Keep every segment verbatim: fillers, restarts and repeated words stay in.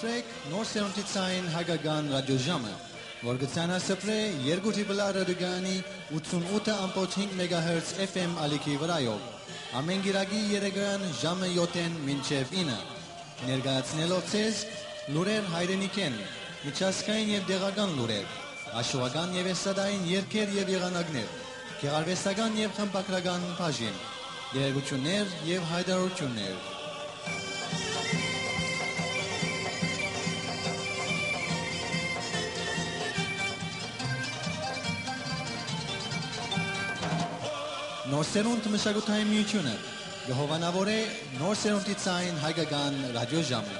Նոր սերունդի ցային հայկական ռադիոժամը, որ կը ցանասփռէ երկու դիպլա ռադիոկայանի ութսունութ ըմբոց հինգ մեգահերց F M ալիքի վրայով, ամէն կիրակի երեկոյեան ժամը յոթ մինչեւ ինը, ներկայացնելով ձեզ լուրեր հայրենիքէն, միջազգային եւ տեղական լուրեր, հաշուական եւ էսթատային երգեր եւ եղանակներ, գեղարուեստական եւ խմբագրական բաժին, տեղեկութիւններ եւ յայտարարութիւններ։ Նոր սերունդ մշակութային միութիւնը կը հովանաւորէ նոր սերունդի ցային հայկական ռադիոժամը։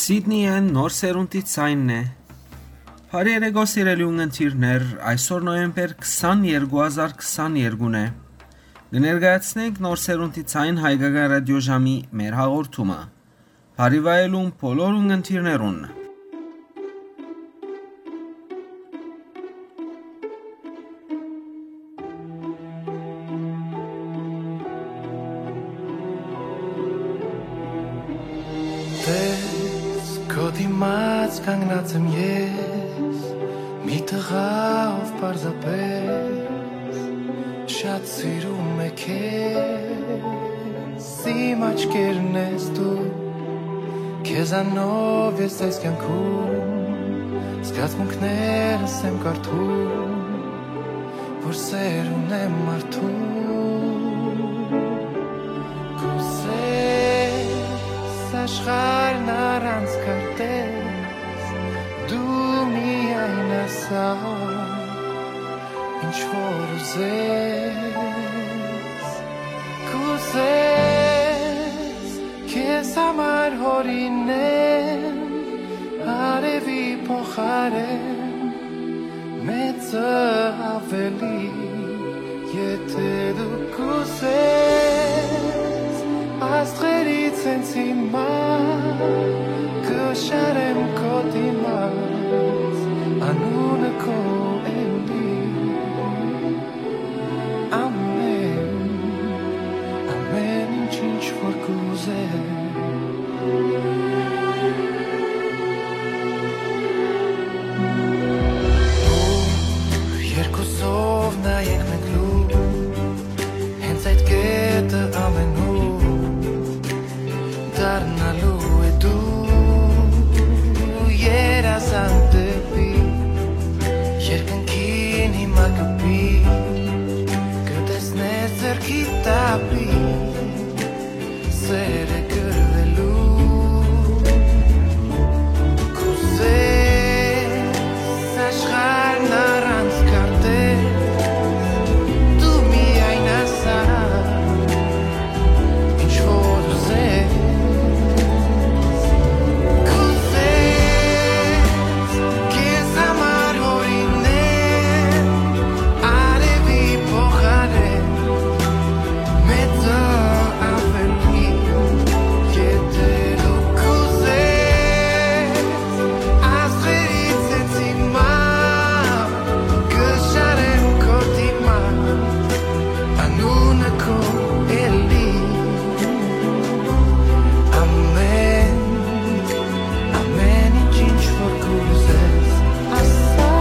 Սիդնիէն նոր սերունդի ցայնն է։ Բարի երեկո, սիրելի ունգընտիրներ, այսօր նոյեմբեր քսաներկու հազար քսաներկուն է։ Կը ներկայացնենք նոր սերունդի ցայն հայկական ռադիոժամի մեր հաղորդումը։ Բարի վայելում բոլոր ունգընտիրներուն։ Տես քո դիմաց Կանգնած եմ ես, մի տղա, ով պարզապէս շատ սիրում է քեզ, իմ աչքերն ես դու, քեզանով ես այս կյանքում, զգացմունքներս եմ կարդում, որ սեր ունեմ մարդու։ Կուզես աշխարհն առանց քարտեզ, դու միայն ասա, ինչ որ ուզես, կուզես քեզ համար հորինեմ արևի փոխարեն մեծը ավելի, եթե դու կուզես, աստղերից հենց հիմա կը շարեմ քո դիմաց, անունը քո էլի։ Ամեն, ամեն ինչ, ինչ որ կուզես։ Ու երկուսով նայենք մենք լուր, հենց այդ կետը ամենուր դառնալու է դու երազանք դեպի երկնքին հիմա կպի, կտեսնես ձեռքի տապի սերը կրվելու։ Կուզես աշխարհն առանց քարտեզ, դու միայն ասա, ինչ որ ուզես, կուզես քեզ համար հորինել արևի փոխարեն մեծը ավելի, եթե դու կուզես, աստղերից հենց հիմա կը շարեմ քո դիմաց, անունը քո էլի։ Ամեն, ամեն ինչ, ինչ որ կուզես, ասա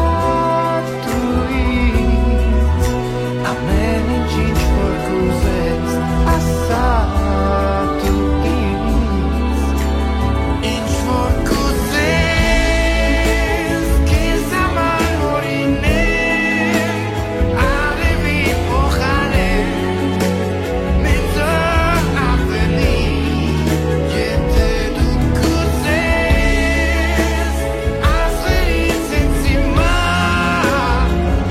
դու ինձ, ամեն ինչ, ինչ որ կուզես, ասա դու ինձ, ինչ որ կուզես, քեզ համար օրինեմ, արևի փոխարեն, մեծը ավելի, եթե դու կուզես, Աստղերից ինձ հիմա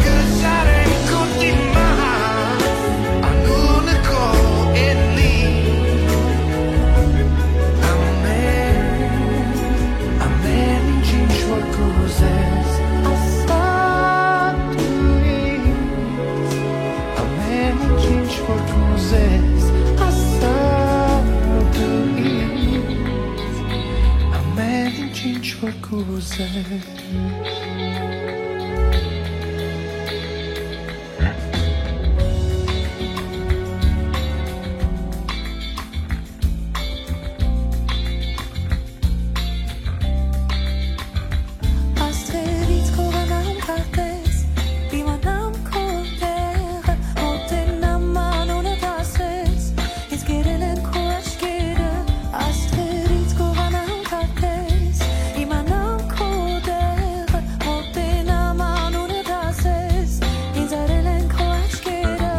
կը շարեմ քո դիմաց, անունը քո էլի։ Ամեն, ամեն ինչ, ինչ որ կուզես, ասա դու ինձ, ամեն ինչ, ինչ որ կուզես, ասա դու ինձ, ամեն ինչ, ինչ որ կուզես։ Աստղերից կ'ուղանամ քարտեզ, դիմանամ քո տեղը, մոտենամ անունդ ասես, ինձ կերել են քո աչքերը, աստղերից կ'ուղանամ քարտեզ, իմանամ քո տեղը, մոտենամ անունդ ասես, ինձ արել են քո աչքերը,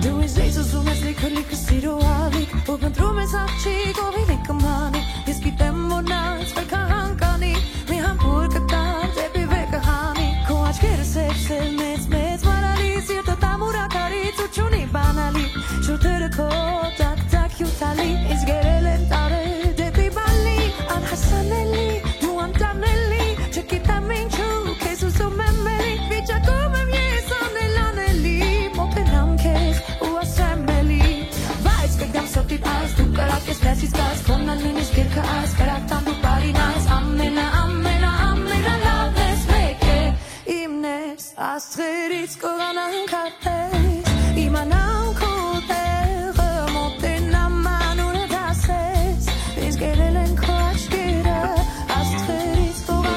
դու ինձ ես ուզում ես լիքը, լիքը սիրո ալիք, ու փնտրում ես աղջիկ, ով իլի կմանի, ես գիտեմ, որ նա ինձ վեր կհանգանի, մի համբույր կտար դեպի վեր կհանի, քո աչքերը սև, սև, մեծ, մեծ, մարալի, սիրտը տամուր ակարի, ցուրտ չունի բանալի, շուրթերը քո տակ, տակ հիւթալի, ինձ գերել են տարեր դեպի բալի, անհասանելի, դու անտանելի, չգիտեմ ինչու, քեզ ուզում եմ էլի, վիճակում եմ ես անել անելի, մոտենամ քեզ ու ասեմ էլի, բայց կգամ սրտի տակ, դու կրակ ես, մեզ իսկ աս, քոննան նույնիսկ երկը աս, կրակ տան դու բարին աս, ամենա, ամենա, ամենալավն ես, մեկ է, իմն ես, աստղերից կ'ուղանամ քարտեզ, իմանամ քո տեղը, մոտենամ անունդ ասես, ինձ գերել են քո աչքերը, աստղերից կ'ուղանամ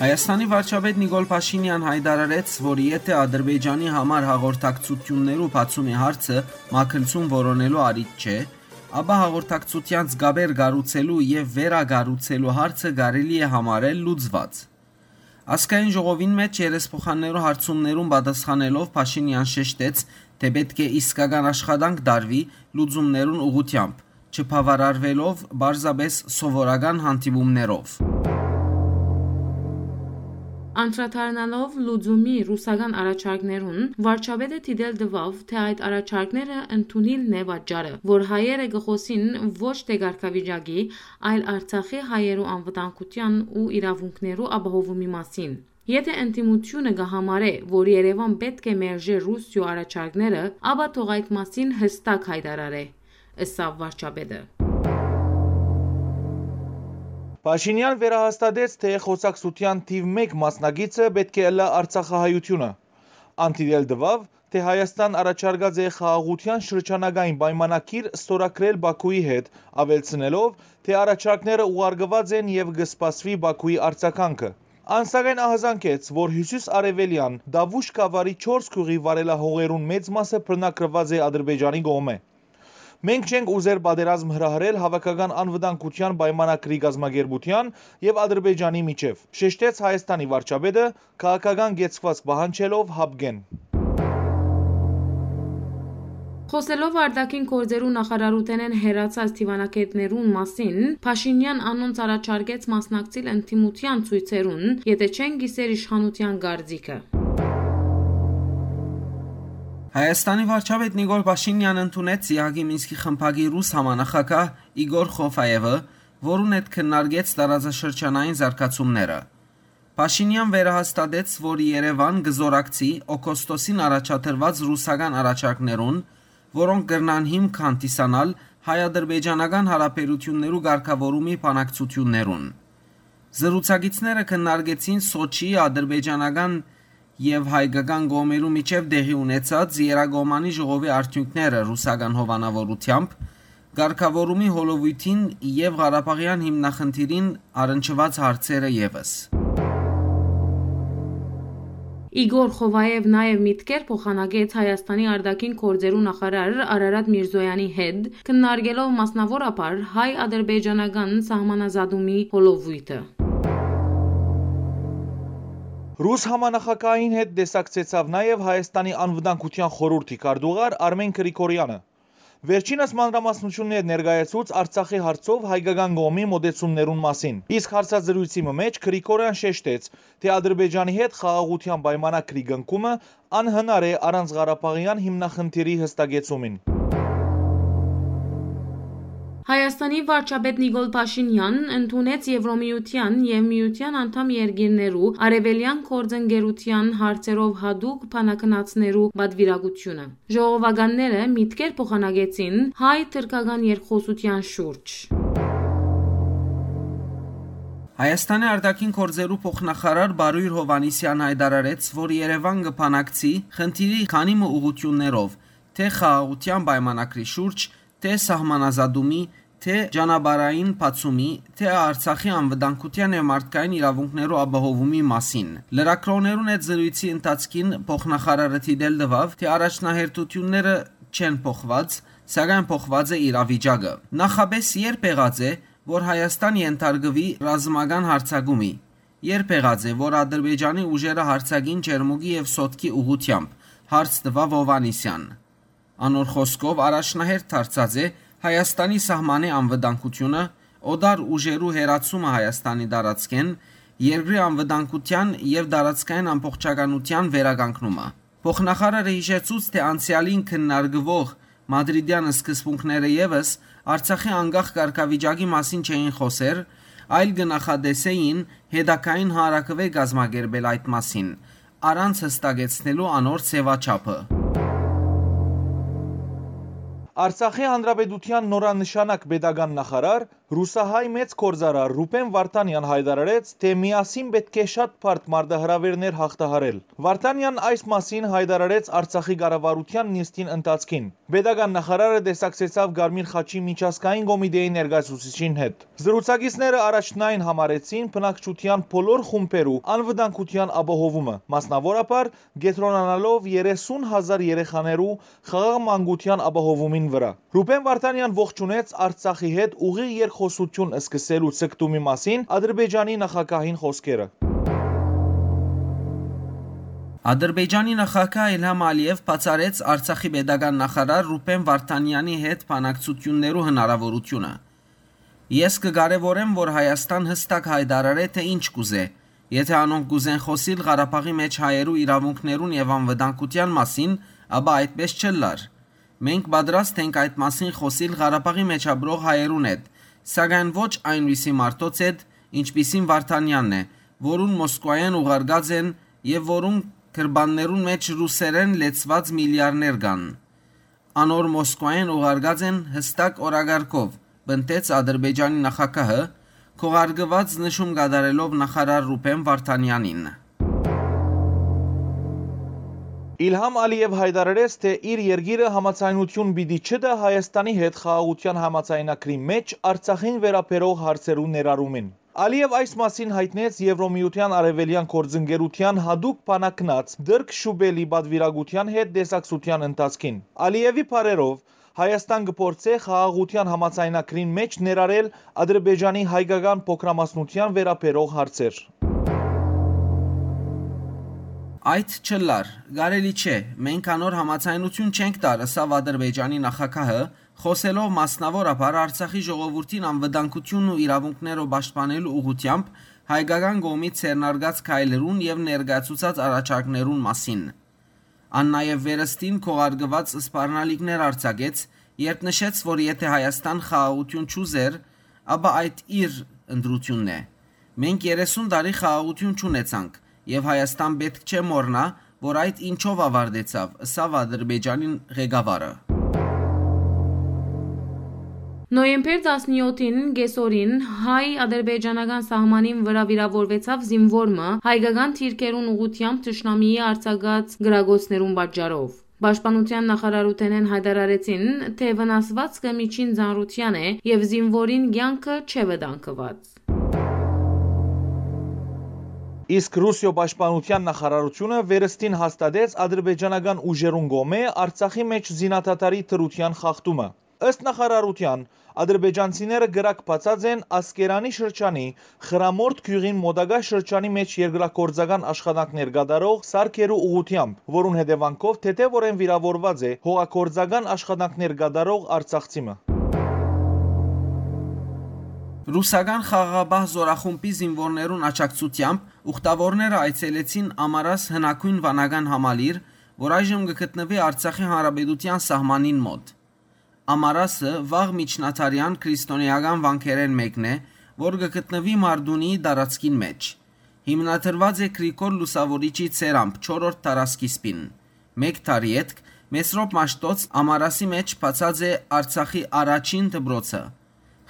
Հայաստանի վարչապետ Նիկոլ Փաշինեան յայտարարեց, որ եթէ Ադրբեջանի համար հաղորդակցութիւններու բացումի հարցը մագլցում որոնելու առիթ չէ, ապա հաղորդակցութեան զգաբեր կառուցելու եւ վերակառուցելու հարցը կարելի է համարել լուծուած։ Ազգային ժողովին մէջ երեսփոխաններու հարցումներուն պատասխանելով՝ Փաշինեան շեշտեց, թէ պէտք է իսկական աշխատանք տարուի լուծումներուն ուղղութեամբ, չբաւարարուելով պարզապէս սովորական հանդիպումներով։ Անդրադառնալով լուծումի ռուսական առաջարկներուն, վարչապետը դիտել տուաւ, թէ այդ առաջարկները ընդունիլն է պատճառը, որ հայերը կը խօսին ոչ թէ կարգավիճակի, այլ Արցախի հայերու անվտանգութեան ու իրաւունքներու ապահովումի մասին։ Եթէ ընդդիմութիւնը կը համարէ, որ Երեւան պէտք է մերժէ Ռուսիոյ առաջարկները, ապա թող այդ մասին յստակ յայտարարէ, ըսաւ վարչապետը։ Փաշինեան վերահաստատեց, թէ խօսակցութեան թիւ մէկ մասնակիցը պէտք է ըլլայ արցախահայութիւնը։ Ան դիտել տուաւ, թէ Հայաստան առաջարկած է խաղաղութեան շրջանական պայմանագիր ստորագրել Բաքուի հետ, աւելցնելով, թէ առաջարկները ուղարկուած են եւ կը սպասուի Բաքուի արձագանքը։ Ան սակայն ահազանգեց, որ հիւսիս արեւելեան Դավուշ գաւառի չորս գիւղի վարելահողերուն մեծ մասը բռնագրուած է Ադրբեջանի կողմէ։ «Մենք չենք ուզեր պատերազմ հրահրել հաւաքական անվտանգութեան պայմանագրի կազմակերպութեան եւ Ադրբեջանի միջեւ», շեշտեց Հայաստանի վարչապետը՝ քաղաքական կեցուածք պահանջելով յապկէն։ Խօսելով արտաքին գործերու նախարարութենէն հեռացած դիվանագէտներուն մասին, Փաշինեան անոնց առաջարկեց մասնակցիլ ընդդիմութեան ցոյցերուն, եթէ չեն կիսեր իշխանութեան կարծիքը։ Հայաստանի վարչապետ Նիկոլ Փաշինեան ընդունեց ԵԱՀԿ-ի Մինսկի խմբակի ռուս համանախագահ Իգոր Խովաևը, որուն հետ քննարկեց տարածաշրջանային զարգացումները։ Փաշինեան վերահաստատեց, որ Երեւան կը զօրակցի օգոստոսին առաջադրուած ռուսական առաջարկներուն, որոնք կրնան հիմք հանդիսանալ հայ-ադրբեջանական հարաբերութիւններու կարգաւորումի բանակցութիւններուն։ Զրուցակիցները քննարկեցին Սոչիի ադրբեջանական եւ հայկական կողմերու միջեւ տեղի ունեցած Երակոմանի ժողովի արդիւնքները ռուսական հովանաւորութեամբ, կարգաւորումի հոլովոյթին եւ Ղարաբաղեան հիմնախնդիրին առնչուած հարցերը եւս։ Իգոր Խովաեւ նաեւ միտքեր փոխանակեց Հայաստանի արտաքին գործերու նախարար Արարատ Միրզոյանի հետ, քննարկելով մասնաւորաբար հայ-ադրբեջանական սահմանազատումի հոլովոյթը։ Ռուս համանախագահին հետ տեսակցեցաւ նաեւ Հայաստանի անվտանգութեան խորհուրդի քարտուղար Արմեն Գրիգորյանը։ Վերջինս մանրամասնութիւններ ներկայացուց Արցախի հարցով հայկական կողմի մօտեցումներուն մասին, իսկ հարցազրոյցի մը մէջ Գրիգորյան շեշտեց, թէ Ադրբեջանի հետ խաղաղութեան պայմանագրի կնքումը անհնար է առանց ղարաբաղեան հիմնախնդիրի յստակեցումին։ Հայաստանի վարչապետ Նիկոլ Փաշինեան ընդունեց Եվրոմիության եւ միության անդամ երկիրներու արեւելեան գործընկերութեան հարցերով յատուկ բանագնացներու պատվիրակութիւնը։ Ժողովականները միտքեր փոխանակեցին հայ-թրքական երկխօսութեան շուրջ։ Հայաստանի արտաքին գործերու փոխնախարար Բարոյր Հովհաննիսեան յայտարարեց, որ Երեւան կը բանակցի խնդիրի քանի մը ուղղութիւններով, թէ խաղաղութեան պայմանագրի շուրջ, թէ սահմանազատումի, թէ ճանապարհային բացումի, թէ Արցախի անվտանգութեան եւ մարդկային իրաւունքներու ապահովումի մասին։ Լրագրողներուն հետ զրոյցի ընթացքին փոխնախարարը դիտել տուաւ, թէ առաջնահերթութիւնները չեն փոխուած, սակայն փոխուած է իրավիճակը։ Նախապէս ե՞րբ եղած է, որ Հայաստան ենթարկուի ռազմական յարձակումի։ Ե՞րբ եղած է, որ Ադրբեջանի ուժերը յարձակին Ճերմուկի եւ Սոտկի ուղղութեամբ, հարց տուաւ Հովհաննիսեան։ Անոր խօսքով, առաջնահերթ դարձած է Հայաստանի սահմանի անվտանգութիւնը, օտար ուժերու հեռացումը Հայաստանի տարածքէն, երկրի անվտանգութեան եւ տարածքային ամբողջականութեան վերականգնումը։ Փոխնախարարը յիշեցուց, թէ անցեալին քննարկուող մադրիդեան սկզբունքները եւս Արցախի անկախ կարգավիճակի մասին չէին խօսեր, այլ կը նախատեսէին հետագային հանրաքուէ կազմակերպել այդ մասին, առանց յստակեցնելու անոր ձեւաչափը։ Արցախի Հանրապետութեան նորանշանակ պետական նախարար, ռուսահայ մեծ գործարար Ռուբեն Վարդանեան յայտարարեց, թէ միասին պէտք է շատ բարդ մարտահրաւէրներ յաղթահարել։ Վարդանեան այս մասին յայտարարեց Արցախի կառավարութեան նիստին ընթացքին։ Պետական նախարարը տեսակցեցաւ Կարմիր խաչի միջազգային կոմիտեի ներկայացուցիչին հետ։ Զրուցակիցները առաջնային համարեցին բնակչութեան բոլոր խումբերու անվտանգութեան ապահովումը, մասնաւորաբար կեդրոնանալով երեսուն հազար երեխաներու խաղաղ մանկութեան ապահովումին վրայ։ Ռուբեն Վարդանեան ողջունեց Արցախի հետ ուղիղ երկխօսութիւն սկսելու ձգտումի մասին Ադրբեջանի նախագահին խօսքերը։ Ադրբեջանի նախագահ Իլհամ Ալիեւ բացառեց Արցախի պետական նախարար Ռուբեն Վարդանեանի հետ բանակցութիւններու հնարաւորութիւնը։ «Ես կը կարեւորեմ, որ Հայաստան յստակ յայտարարէ, թէ ինչ կ'ուզէ։ Եթէ անոնք կ'ուզեն խօսիլ Ղարաբաղի մէջ հայերու իրաւունքներուն եւ անվտանգութեան մասին, ապա այդպէս չ'ըլլար։ Մենք պատրաստ ենք այդ մասին խօսիլ Ղարաբաղի մէջ ապրող հայերուն հետ, սակայն ոչ այն ռիսի մարդոց հետ, ինչպիսին Վարդանեանն է, որուն Մոսկուայէն ուղարկած են եւ որուն գրպաններուն մէջ ռուսերէն լեցուած միլիարներ կան։ Անոր Մոսկուայէն ուղարկած են յստակ օրակարգով», պնդեց Ադրբեջանի նախագահը, քողարկուած նշում կատարելով նախարար Ռուբեն Վարդանեանին։ Իլհամ Ալիեւ յայտարարեց, թէ իր երկիրը համաձայնութիւն պիտի չտայ Հայաստանի հետ խաղաղութեան համաձայնագրի մէջ Արցախին վերաբերող հարցերու ներառումին։ Ալիեւ այս մասին յայտնեց Եվրոմիութեան արեւելեան գործընկերութեան յատուկ բանակնաց Տիրկ Շուպելի պատուիրակութեան հետ տեսակցութեան ընթացքին։ Ալիեւի բառերով, Հայաստան կը փորձէ խաղաղութեան համաձայնագրին մէջ ներառել Ադրբեջանի հայկական փոքրամասնութեան վերաբերող հարցեր։ «Այդ չ'ըլլար, կարելի չէ, մենք անոր համաձայնութիւն չենք տար», ըսաւ Ադրբեջանի նախագահը, խօսելով մասնաւորաբար Արցախի ժողովուրդին անվտանգութիւնն ու իրաւունքները պաշտպանելու ուղղութեամբ հայկական կողմի ձեռնարկած քայլերուն եւ ներկայացուցած առաջարկներուն մասին։ Ան նաեւ վերստին քողարկուած սպառնալիքներ արձակեց, երբ նշեց, որ եթէ Հայաստան խաղաղութիւն չ'ուզէր, ապա այդ իր ընտրութիւնն է։ «Մենք երեսուն տարի խաղաղութիւն չունեցանք եւ Հայաստան պէտք չէ մոռնայ, որ այդ ինչով աւարտեցաւ», ըսաւ Ադրբեջանին ղեկավարը։ Նոյեմբեր տասնեօթին կեսօրին հայ-ադրբեջանական սահմանին վրայ վիրաւորուեցաւ զինուոր մը՝ հայկական դիրքերուն ուղղութեամբ թշնամիի արձակած կրակոցներուն պատճառով։ Պաշտպանութեան նախարարութենէն յայտարարեցին, թէ վնասուածքը միջին ծանրութեան է եւ զինուորին կեանքը չէ վտանգուած։ Իսկ Ռուսիոյ պաշտպանութեան նախարարութիւնը վերստին հաստատեց ադրբեջանական ուժերուն կողմէ Արցախի մէջ զինադադարի դրութեան խախտումը։ Ըստ նախարարութեան, ադրբեջանցիները կրակ բացած են Ասկերանի շրջանի Խրամորդ գիւղին մօտակայ շրջանի մէջ երկրագործական աշխատանքներ կատարող սարքերու ուղղութեամբ, որուն հետեւանքով թեթեւօրէն վիրաւորուած է հողագործական աշխատանքներ կատարող արցախցի մը։ Ռուսական խաղաղապահ զորախումբի զինուորներուն աջակցութեամբ ուխտավորները այցելեցին Ամարաս հնագոյն վանական համալիր, որ այժմ կը գտնուի Արցախի Հանրապետութեան սահմանին մօտ։ Ամարասը վաղ միջնադարեան քրիստոնէական վանքերէն մէկն է, որ կը գտնուի Մարդունիի տարածքին մէջ։ Հիմնադրուած է Գրիգոր Լուսաւորիչի ցերամբ չորրորդ դարասկիզբին։ Մէկ դար ետք Մեսրոպ Մաշտոց Ամարասի մէջ բացած է Արցախի առաջին դպրոցը։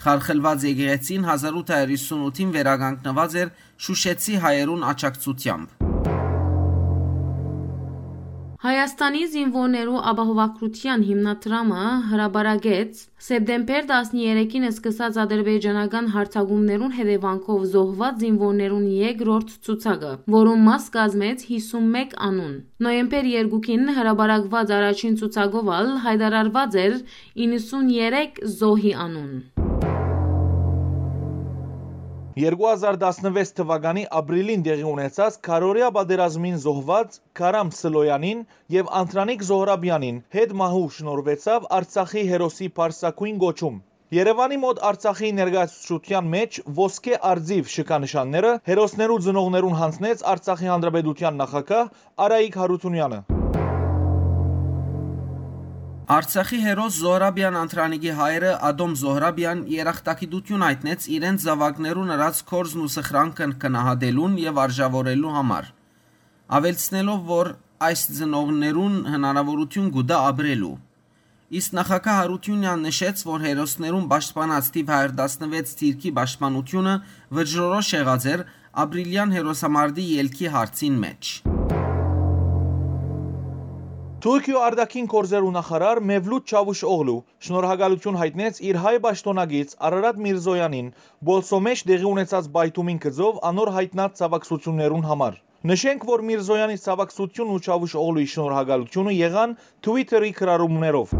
Խարխլուած եկեղեցին հազար ութ հարյուր յիսուն ութին վերականգնուած էր շուշեցի հայերուն աջակցութեամբ։ Հայաստանի զինուորներու ապահովագրութեան հիմնադրամը հրապարակեց սեպտեմբեր տասներեքին սկսած ադրբեջանական յարձակումներուն հետեւանքով զոհուած զինուորներուն երկրորդ ցուցակը, որուն մաս կազմեց հիսունմեկ անուն։ Նոյեմբեր երկուին հրապարակուած առաջին ցուցակով ալ յայտարարուած էր իննսուններեք զոհի անուն։ Երկու հազար տասնվեց թվականի ապրիլին տեղի ունեցած քարորեայ պատերազմին զոհուած Քարամ Սլոյանին եւ Անդրանիկ Զոհրաբյանին հետ մահու շնորհուեցաւ Արցախի հերոսի պարսագոյն կոչում։ Երեւանի մօտ Արցախի ներկայացուցչութեան մէջ ոսկէ արծիւ շքանշանները հերոսներու ծնողներուն յանձնեց Արցախի Հանրապետութեան նախագահ Արայիկ Հարութունեանը։ Արցախի հերոս Զոհրաբեան Անդրանիկի հայրը Ադոմ Զոհրաբեան երախտագիտութիւն յայտնեց իրենց զաւակներուն ըրած գործն ու սխրանքն գնահատելուն եւ արժաւորելու համար, աւելցնելով, որ այս ծնողներուն հնարաւորութիւն կու տայ ապրելու։ Իսկ նախագահ Յարութիւնեան նշեց, որ հերոսներուն պաշտպանած թիվ հազար տասնեթ դիրքի պաշտպանութիւնը վճռորոշ եղած էր ապրիլեան հերոսամարտի ելքի հարցին մէջ։ Թուրքիոյ արտաքին գործերու նախարար Մևլութ Չավուշօղլու շնորհակալութիւն յայտնեց իր հայ պաշտօնակից Արարատ Միրզոյանին Պոլսոյ մէջ տեղի ունեցած պայթումին գծով անոր յայտնած ցաւակցութիւններուն համար։ Նշենք, որ Միրզոյանի ցաւակցութիւնն ու Չավուշօղլուի շնորհակալութիւնը եղան Twitter-ի գրառումներով։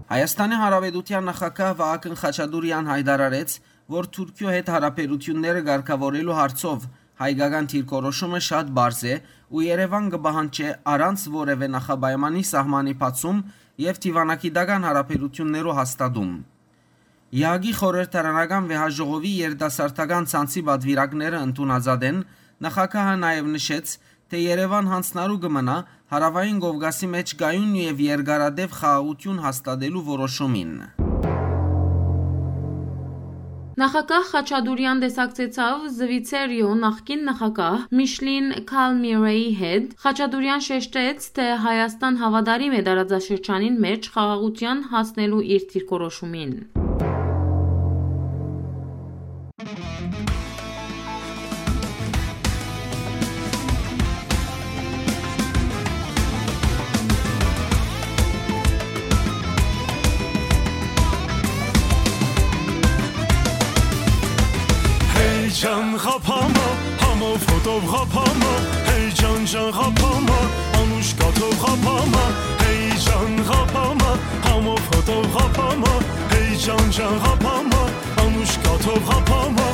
Հայաստանի Հանրապետութեան նախագահ Վահագն Խաչատուրեան յայտարարեց, որ Թուրքիոյ հետ յարաբերութիւնները կարգաւորելու հարցով հայկական դիրքորոշումը շատ պարզ է ու Երեւան կը պահանջէ առանց որեւէ նախապայմանի սահմանի բացում եւ դիվանագիտական յարաբերութիւններու հաստատում։ Եհակի խորհրդարանական վեհաժողովի երիտասարդական ցանցի պատուիրակները ընդունած ատեն նախագահը նաեւ նշեց, թէ Երեւան յանձնառու կը մնայ Հարաւային Կովկասի մէջ կայուն եւ երկարատեւ խաղաղութիւն հաստատելու որոշումին։ Նախագահ Խաչատուրեան տեսակցեցաւ Զուիցերիոյ նախկին նախագահ Միշլին Քալմիրեի հետ։ Խաչատուրեան շեշտեց, թէ Հայաստան հաւատարիմ է տարածաշրջանին մէջ խաղաղութեան հասնելու իր դիրքորոշումին։ Հեյ ջան, ղափամա, համով հոտով ղափամա, հեյ ջան, ջան, ղափամա, անուշ կաթով ղափամա, հեյ ջան, ղափամա, համով հոտով ղափամա, հեյ ջան, ջան, ղափամա, անուշ կաթով ղափամա։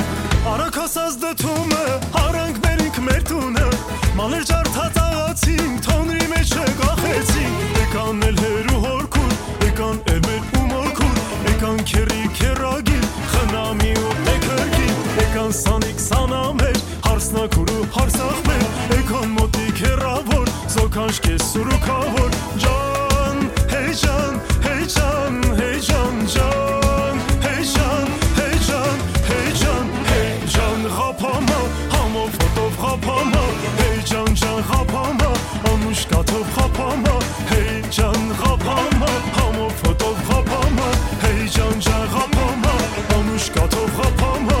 Արագ հասած դդումը, արանք մերինք մեր տունը, մալեր ջարդած աղացին, թոնրի մեջ է կախեցին, եկան էլ հերու հորքուր, եկան էլ մեր ու մորքուր, եկան քերի քերագին, խնամի ու տեքերգին, եկան սանիկ սանամեր, հարսնակուր ու հարսախմեր, եկան մոտիկ հեռավոր, զոքանչ կես սուրուքավոր, ջան, հեյ ջան, հեյ ջան, հեյ ջան, ջան, հեյ ջան, հեյ ջան, հեյ ջան, հեյ ջան, ղափամա, համով հոտով ղափամա, հեյ ջան, ջան, ղափամա, անուշ կաթով ղափամա, հեյ ջան, ղափամա, համով հոտով ղափամա, հեյ ջան, ջան, ղափամա, անուշ կաթով ղափամա։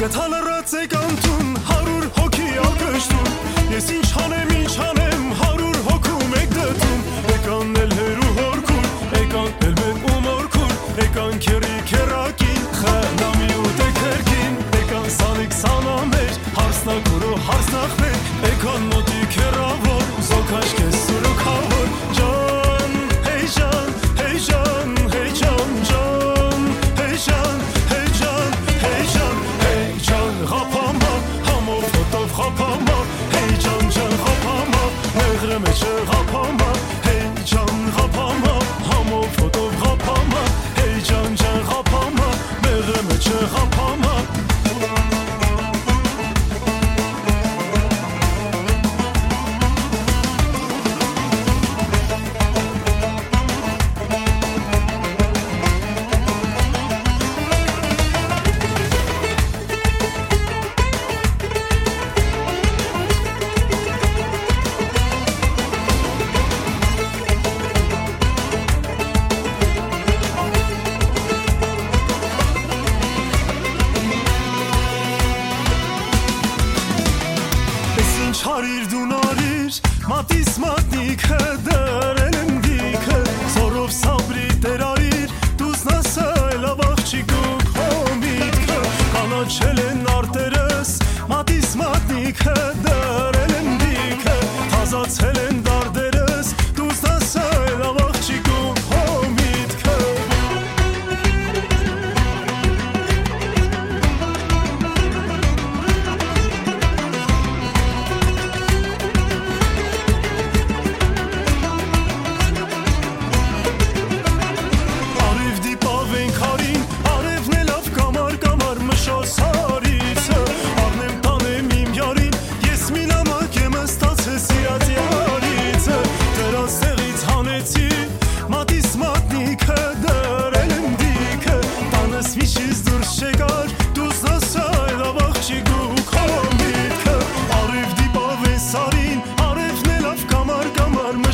Գթա լռած եք անտուն, հարյուր հոգի ակշտուն, ես ինչ անեմ, ինչ անեմ, հարյուր հոգու մէկ դդում, եկան էլ հերու հորքուր, եկան էլ մեր ու մորքուր, եկան քերի քերակին, խնամի ու տեքերգին, եկան սանիկ սանամեր, հարսնակուր ու հարսնախմեր, եկան մոտիկ հեռավոր, զոքաշ կես սուրուքավոր, ջան, հեյ ջան, հեյ ջան, հեյ ջան, ջան, հեյ ջան, հեյ ջան, հեյ ջան, հեյ ջան, ղափամա, համով հոտով ղափամա, հեյ ջան, ջան, ղափամա, մեղրը մեջը ղափամա, հեյ ջան, ղափամա, համով հոտով ղափամա, հեյ ջան, ջան, ղափամա, մեղրը մեջը ղափամա։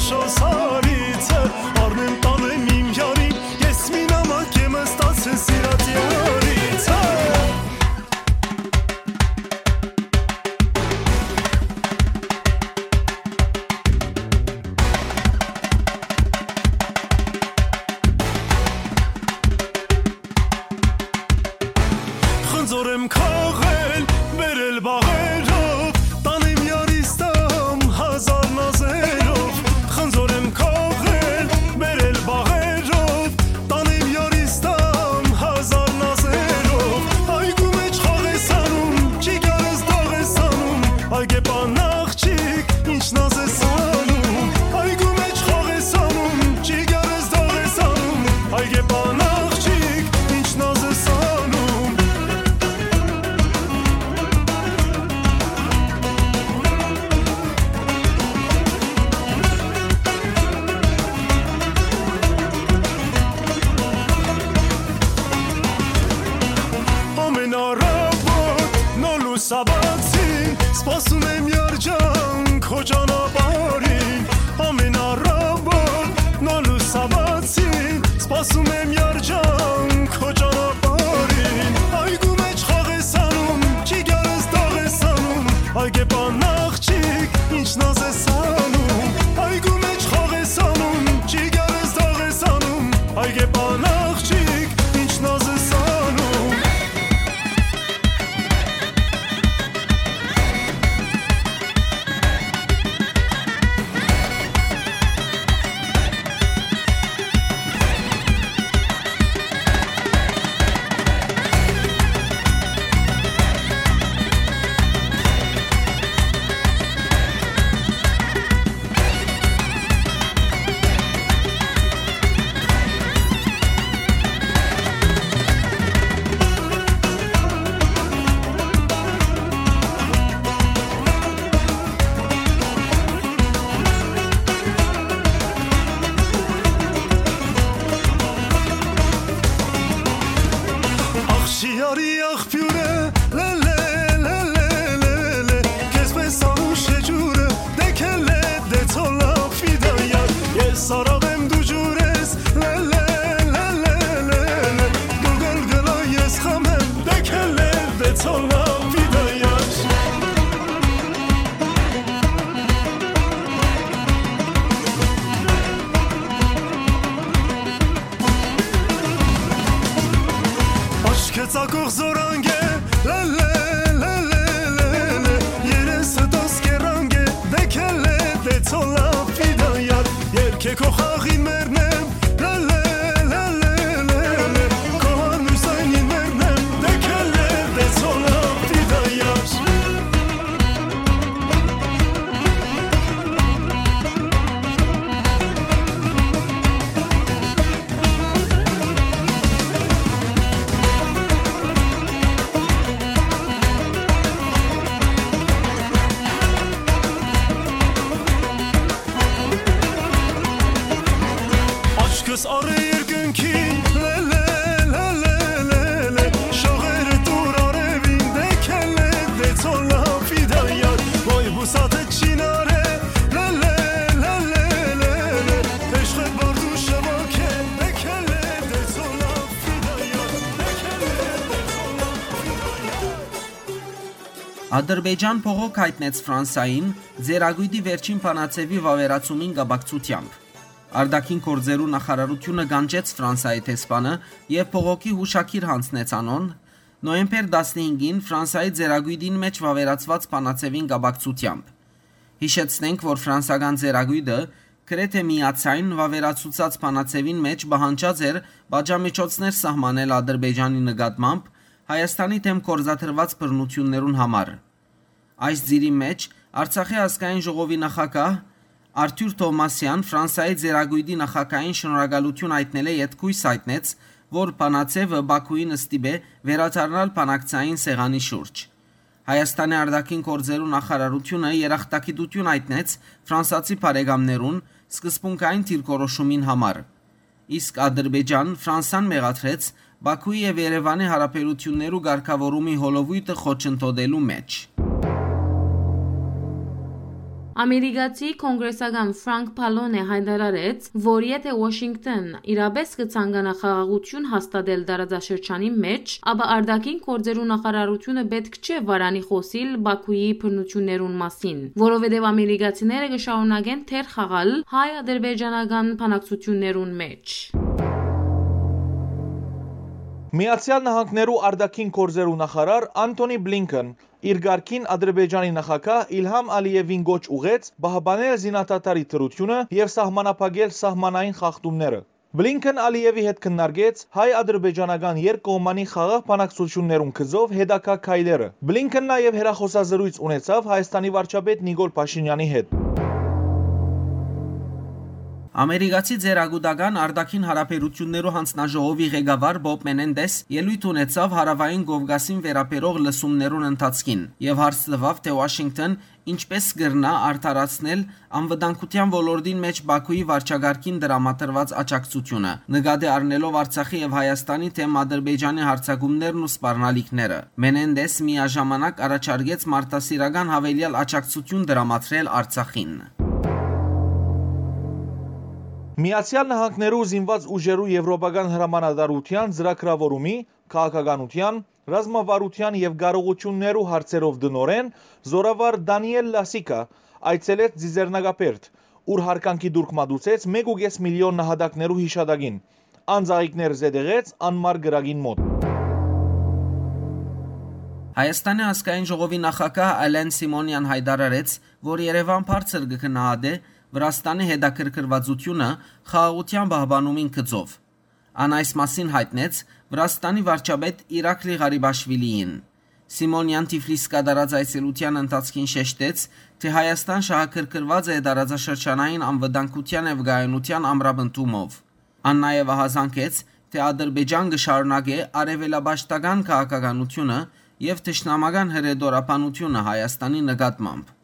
Շոսարիցը, առնեմ տանեմ իմ յարին, ես մի նամակ եմ ստացել սիրած յարիցը։ Խնձոր եմ քաղել, բերել բաղերով, տանեմ յարիստամ հազար նազերով։ Խնձոր եմ քաղել, բերել բաղերով, տանեմ յարիստամ հազար նազերով։ Այգու մեջ խաղ ես անում, չի գարս դաղ ես անում, այգեպան աղջիկ, ինչ նազ ես անում։ Այգու մեջ խաղ ես անում, չի գարս դաղ ես անում, այգեպան աղջիկ, ինչ նազ ես անում։ Ամեն առավոտ նոր լուսաբացին, սպասում եմ երջանք քո ճանապարհին։ Ամեն առավոտ նոր լուսաբացին, սպասում եմ երջանք քո ճանապարհին։ Այգու մեջ խաղ ես անում, չի գարս դաղ ես անում, այգեպան աղջիկ, ինչ նազ ես անում։ Այգու մեջ խաղ ես անում, չի գարս դաղ ես անում, այգեպան աղջիկ, ինչ նազ ես անում։ Ախ, շիարի աղբիւրը, լե, լե, լե, քեզպէս անուշ է ջուրը, դեքելե, դե ցոլա, ֆիդայար, ես արաղ եմ դու ջուր ես, լե, լե, լե, լե, լե, լե, դու գլգլա, ես խամ եմ, դեքելե, դե ցոլա, ֆիդայար։ Աչքը ծակող զորանք է, լե, լե, լե, լե, լե, լե, երեսը տոս կերանք է, դեքելե, դե ցոլա, ֆիդայար, երկե քո խաղին մերն եմ, լե, լե, լե, լե, լե, լե, քո հարմոյր զայնին մերն եմ, դեքելե, դե ցոլա, ֆիդայար։ Աչքս առ երկնքին, լե, լե, լե, լե, լե, լե, շողերը տուր արևին, դեքելե, դե ցոլա, ֆիդայար, ոյ բուսատը չինարե, լե, լե, լե, լե, լե, լե, էշղետ բարդու շվոքե, դեքելե, դե ցոլա, ֆիդայար, դեքելե, դե ցոլա, ֆիդայար։ Ադրբեջան փողոք յայտնեց Ֆրանսային՝ ծերակոյտի վերջին բանաձեւի վաւերացումին կապակցութեամբ։ Արտաքին գործերու նախարարությունը կանչեց Ֆրանսայի դեսպանը եւ փողոքի յուշագիր յանձնեց անոնց՝ նոյեմբեր տասնհինգին Ֆրանսայի ծերակոյտին մէջ վաւերացուած բանաձեւին կապակցութեամբ։ Յիշեցնենք, որ ֆրանսական ծերակոյտը գրեթէ միաձայն վաւերացուցած բանաձեւին մէջ պահանջած էր պատժամիջոցներ սահմանել Ադրբեջանի նկատմամբ Հայաստանի դէմ գործադրուած բռնութիւններուն համար։ Այս ծիրի մէջ Արցախի ազգային ժողովի նախագահ Արթուր Թովմասեան Ֆրանսայի ծերակոյտի նախագահին շնորհակալութիւն յայտնելէ յետոյ յայտնեց, որ բանաձեւը Բաքուին ստիպէ վերադառնալ բանակցային սեղանի շուրջ։ Հայաստանի արտաքին գործերու նախարարությունը երախտագիտութիւն յայտնեց ֆրանսացի բարեկամներուն սկզբունքային դիրքորոշումին համար։ Իսկ Ադրբեջան Ֆրանսան մեղադրեց Բաքուի եւ Երեւանի հարաբերութիւններու կարգաւորումի հոլովոյթը խոչընդոտելու մէջ։ Ամերիկացի կոնգրեսական Ֆրանկ Պալոնէ յայտարարեց, որ եթէ Ուաշինկտոն իրապէս կը ցանկանայ խաղաղութիւն հաստատել տարածաշրջանի մէջ, ապա արտաքին գործերու նախարարութիւնը պէտք չէ վարանի խօսիլ Պաքուի բռնութիւններուն մասին, որովհետեւ ամերիկացիները կը շարունակեն թեր խաղալ հայ-ադրբեջանական բանակցութիւններուն մէջ։ Միացեալ Նահանգներու արտաքին գործերու նախարար Անթոնի Բլինքեն իր կարգին Ադրբեջանի նախագահ Իլհամ Ալիևին կոչ ուղղեց պահպանել զինադադարի դրութիւնը եւ սահմանափակել սահմանային խախտումները։ Բլինքեն Ալիևի հետ քննարկեց հայ-ադրբեջանական երկկողմանի խաղաղ բանակցութիւններուն գծով հետագայ քայլերը։ Բլինքեն նաեւ հեռախօսազրոյց ունեցաւ Հայաստանի վարչապետ Նիկոլ Փաշինեանի հետ։ Ամերիկացի ծերագուտական արտաքին հարաբերութիւններու յանձնաժողովի ղեկավար Բոբ Մենենդես ելոյթ ունեցաւ Հարաւային Կովկասին վերաբերող լսումներուն ընթացքին եւ հարց տուաւ, թէ Ուաշինկտոն ինչպէս կրնայ արդարացնել անվտանգութեան ոլորտին մէջ Պաքուի վարչակարգին տրամադրուած աջակցութիւնը, նկատի առնելով Արցախի եւ Հայաստանի թէմ Ադրբեջանի յարձակումներն ու սպառնալիքները։ Մենենդես միաժամանակ առաջարկեց մարդասիրական յաւելեալ աջակցութիւն տրամադրել Արցախին։ Միացեալ Նահանգներու զինուած ուժերու եվրոպական հրամանատարութեան ծրագրաւորումի, քաղաքականութեան, ռազմավարութեան եւ կարողութիւններու հարցերով տնօրէն, զօրավար Դանիել Լասիկա, այցելեց Ծիծեռնակաբերդ, ուր յարգանքի տուրք մատուցեց մէկ ու կէս միլիոն նահատակներու յիշատակին, անծաղիկներ զետեղեց անմար կրակին մօտ։ Հայաստանի ազգային ժողովի նախագահ Ալեն Սիմոնեան յայտարարեց, որ Երեւան բարձր կը գնահատէ Վրաստանի հետաքրքրուածութիւնը խաղաղութեան պահպանումին գծով։ Ան այս մասին յայտնեց Վրաստանի վարչապետ Իրակլի Ղարիբաշվիլիին։ Սիմոնեան Թիֆլիս կատարած այցելութեան ընթացքին շեշտեց, թէ Հայաստան շահագրգռուած է տարածաշրջանային անվտանգութեան եւ կայունութեան ամրապնդումով։ Ան նաեւ ահազանգեց, թէ Ադրբեջան կը շարունակէ արեւելապաշտական քաղաքականութիւնը եւ թշնամական հրետորաբանութիւնը Հայաստանի նկատմամբ։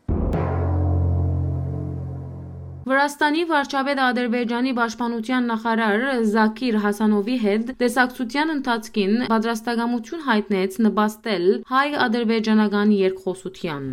Վրաստանի վարչապետ Ադրբեջանի պաշտպանութեան նախարար Զաքիր Հասանովի հետ տեսակցութեան ընթացքին պատրաստակամութիւն յայտնեց նպաստել հայ-ադրբեջանական երկխօսութեան։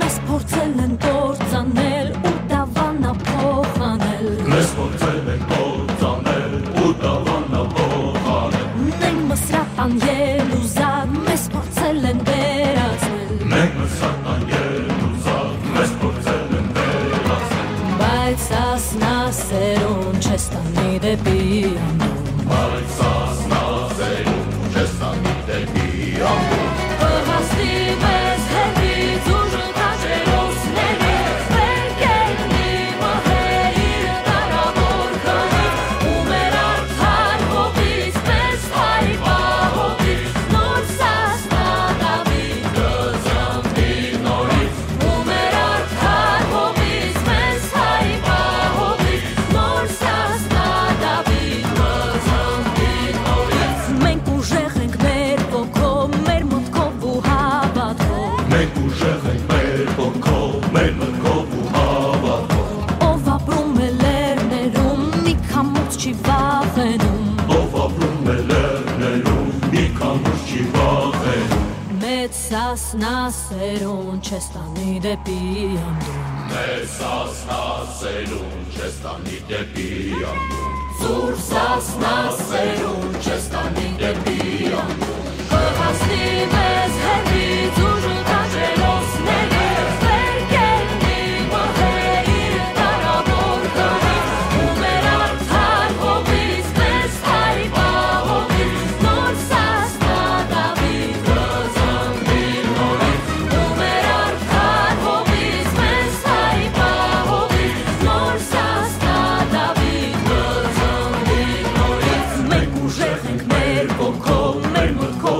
Մեզ փորձել են կործանել ու դավանափոխ անել։ Մեզ փորձել են կործանել ու դավանափոխ անել։ Մենք Մսրատան Ելուզակ, մեզ փորձել են վերածել։ Մենք Մսրատան Ելուզակ, մեզ փորձել են վերածել։ Բայց Սասնա սերուն չես տանի դեպի անդուն։ Բայց Սասնա սերուն չես տանի դեպի անդուն։ Կհասնի մեզ հեռվից ուժ քաջերոսների, վեր կեննի մհեր իր դարաւոր քարից, ու մեր արդար հողից, մեզ հայ պահողից, նոր Սասնա Դավիթ կզննի նորից, ու մեր արդար հողից, մեզ հայ պահողից, նոր Սասնա Դավիթ կզննի նորից։ Մենք ուժեղ ենք մեր ոգով, մեր մտքով ու հավատքով։ Մենք ուժեղ ենք մեր ոգով, մեր մտքով ու հավատքով։ Ով ապրում է լեռներում, մի քամուց չի վախենում։ Ով ապրում է լեռներում, մի քամուց չի վախենում։ Մեծ Սասնա սերուն չես տանի դեպի անդուն։ Մեծ Սասնա սերուն չես տանի դեպի անդուն։ Ծուռ Սասնա սերուն չես տանի դեպի անդուն։ Կհասնի մեզ հեռվից ուժ քաջերոսների, վեր կեննի մհեր իր դարաւոր քարից, ու մեր արդար հողից, մեզ հայ պահողից, նոր Սասնա Դավիթ կզննի նորից, ու մեր արդար հողից, մեզ հայ պահողից, նոր Սասնա Դավիթ կզննի նորից։ Մենք ուժեղ ենք մեր ոգով, մեր մտքով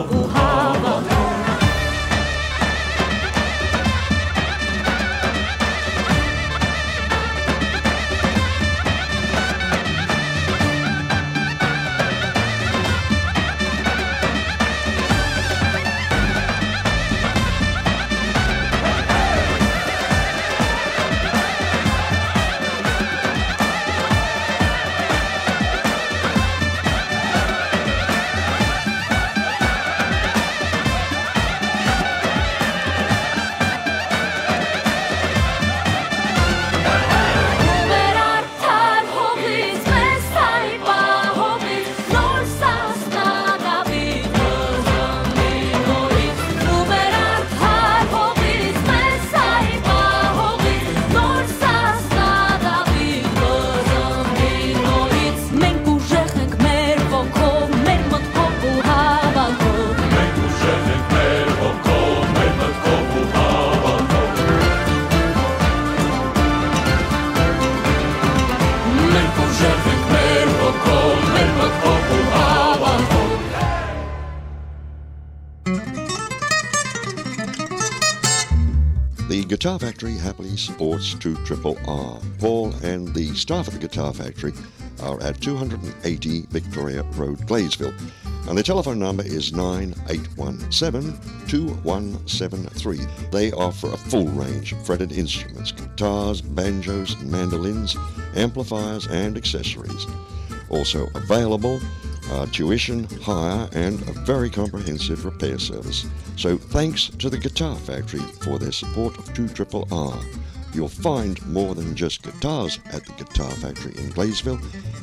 The Guitar Factory happily supports two triple R. Paul and the staff at the Guitar Factory are at two hundred and eighty Victoria Road, Gladesville. And the telephone number is nine eight one seven, two one seven three. They offer a full range of fretted instruments, guitars, banjos, mandolins, amplifiers, and accessories. Also available, uh, tuition, hire, and a very comprehensive repair service. So thanks to the Guitar Factory for their support of two triple R. You'll find more than just guitars at the Guitar Factory in Gladesville,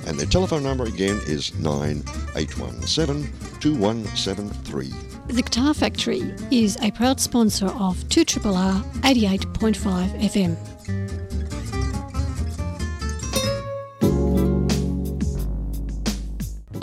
and their telephone number again is nine eight one seven, two one seven three. The Guitar Factory is a proud sponsor of two triple R eighty-eight point five F M.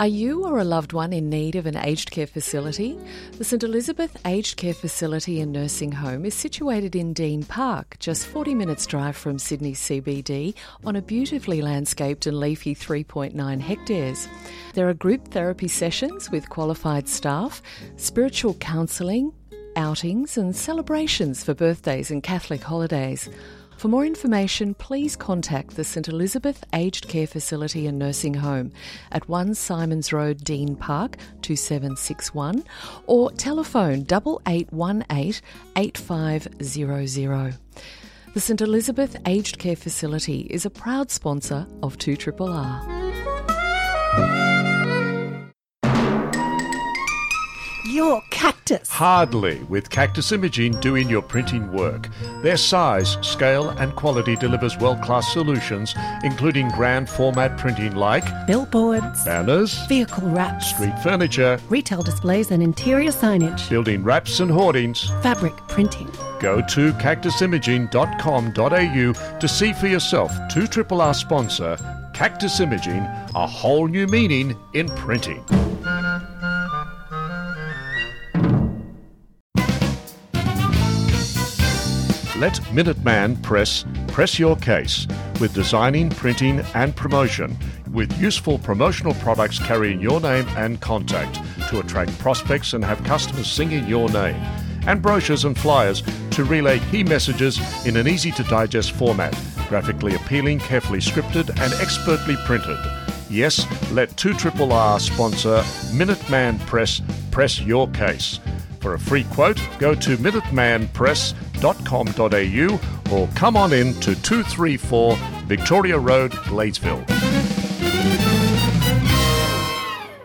Are you or a loved one in need of an aged care facility? The St Elizabeth Aged Care Facility and Nursing Home is situated in Dean Park, just forty minutes drive from Sydney C B D, on a beautifully landscaped and leafy three point nine hectares. There are group therapy sessions with qualified staff, spiritual counselling, outings and celebrations for birthdays and Catholic holidays. For more information, please contact the St Elizabeth Aged Care Facility and Nursing Home at one Simons Road, Dean Park, two seven six one, or telephone double eight one eight, eight five zero zero. The St Elizabeth Aged Care Facility is a proud sponsor of two triple R. Your Cactus. Hardly, with Cactus Imaging doing your printing work. Their size, scale, and quality delivers world-class solutions, including grand format printing like billboards, banners, vehicle wraps, street furniture, retail displays and interior signage, building wraps and hoardings, fabric printing. Go to cactus imaging dot com dot a u to see for yourself two triple R sponsor Cactus Imaging, a whole new meaning in printing. Let Minuteman Press press your case with designing, printing, and promotion, with useful promotional products carrying your name and contact to attract prospects and have customers singing your name, and brochures and flyers to relay key messages in an easy-to-digest format, graphically appealing, carefully scripted, and expertly printed. Yes, let two triple R sponsor Minuteman Press press your case. For a free quote, go to minuteman press dot com dot a u or come on in to two three four Victoria Road, Gladesville.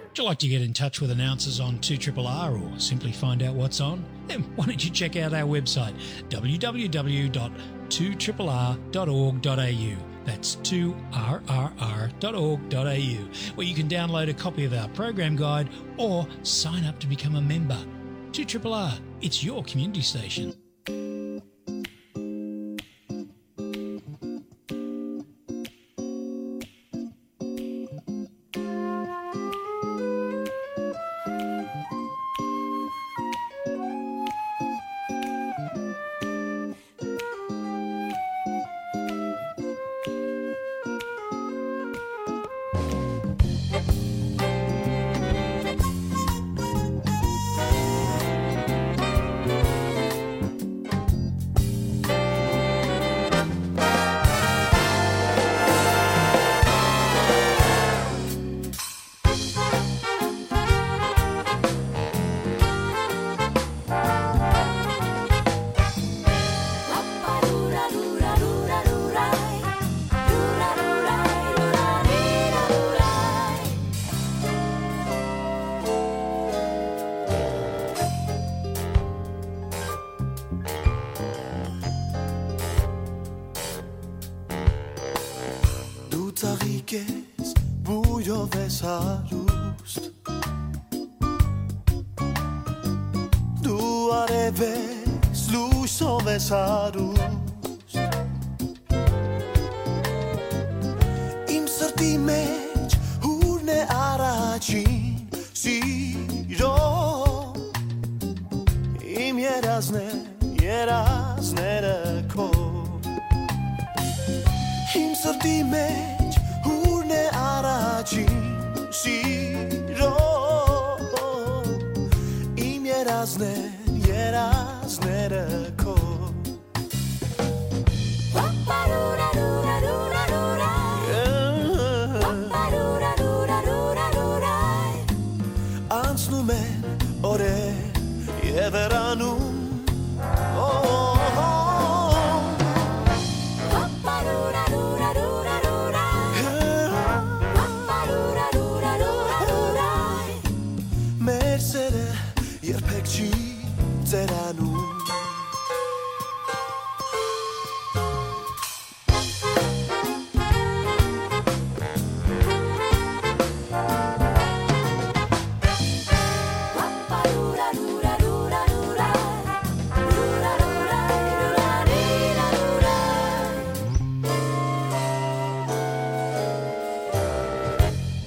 Would you like to get in touch with announcers on two triple R or simply find out what's on? Then why don't you check out our website, w w w dot two triple r dot org dot a u. That's two r r r dot org dot a u, where you can download a copy of our program guide or sign up to become a member. two triple R, it's your community station. Դու ծաղիկ ես, բույրով ես հարուստ, դու արև ես, լույսով ես հարուստ։ Իմ սրտի մեջ հուրն է առաջին սիրո, իմ երազն է, երազները քո։ Իմ սրտի մեջ հուրն է առաջին սիրո, իմ երազն է, երազները քո։ Եվ հեռանում, օ, օ, օ, մեր սերը երբեք չի ծերանում։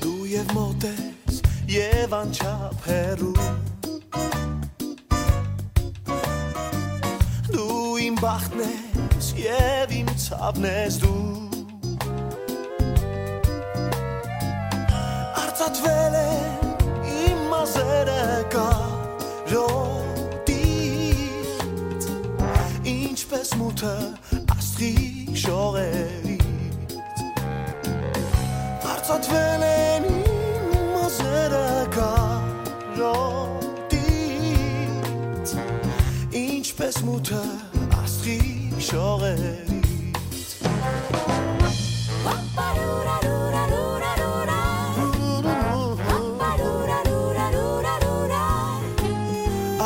Դու և մոտ ես, և անչափ հեռու, դու իմ բախտն ես և իմ ցաւն ես դու։ Արծաթվել են իմ մազերը կարոտից, ինչպես մութը աստղի շողերից։ Արծաթվել են իմ մազերը կարոտից, ինչպես մութը աստղի շողերից։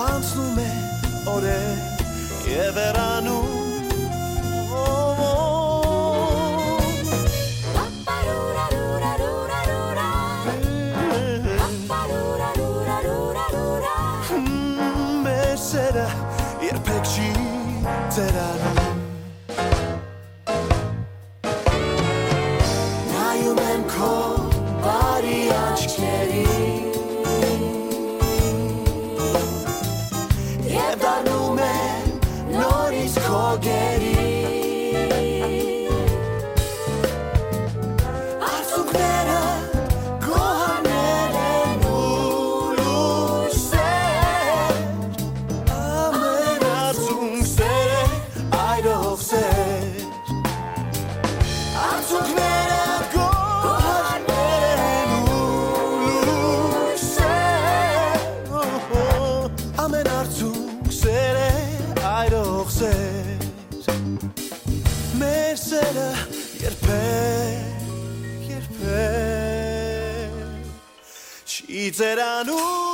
Անցնում է օրեր և հեռանում։ Մեր սերը երբեք չի ծերանում։ Նայում եմ քո բարի աչքերին և դառնում եմ նորից քո գերին։ Արցունքները գոհարներ են ու լույսեր, ամեն արցունք սեր է այրող սեր։ Արցունքները գոհարներ են ու լույսեր, ամեն արցունք սեր է այրող սեր։ Մեր սերը երբեք, երբեք չի ծերանում։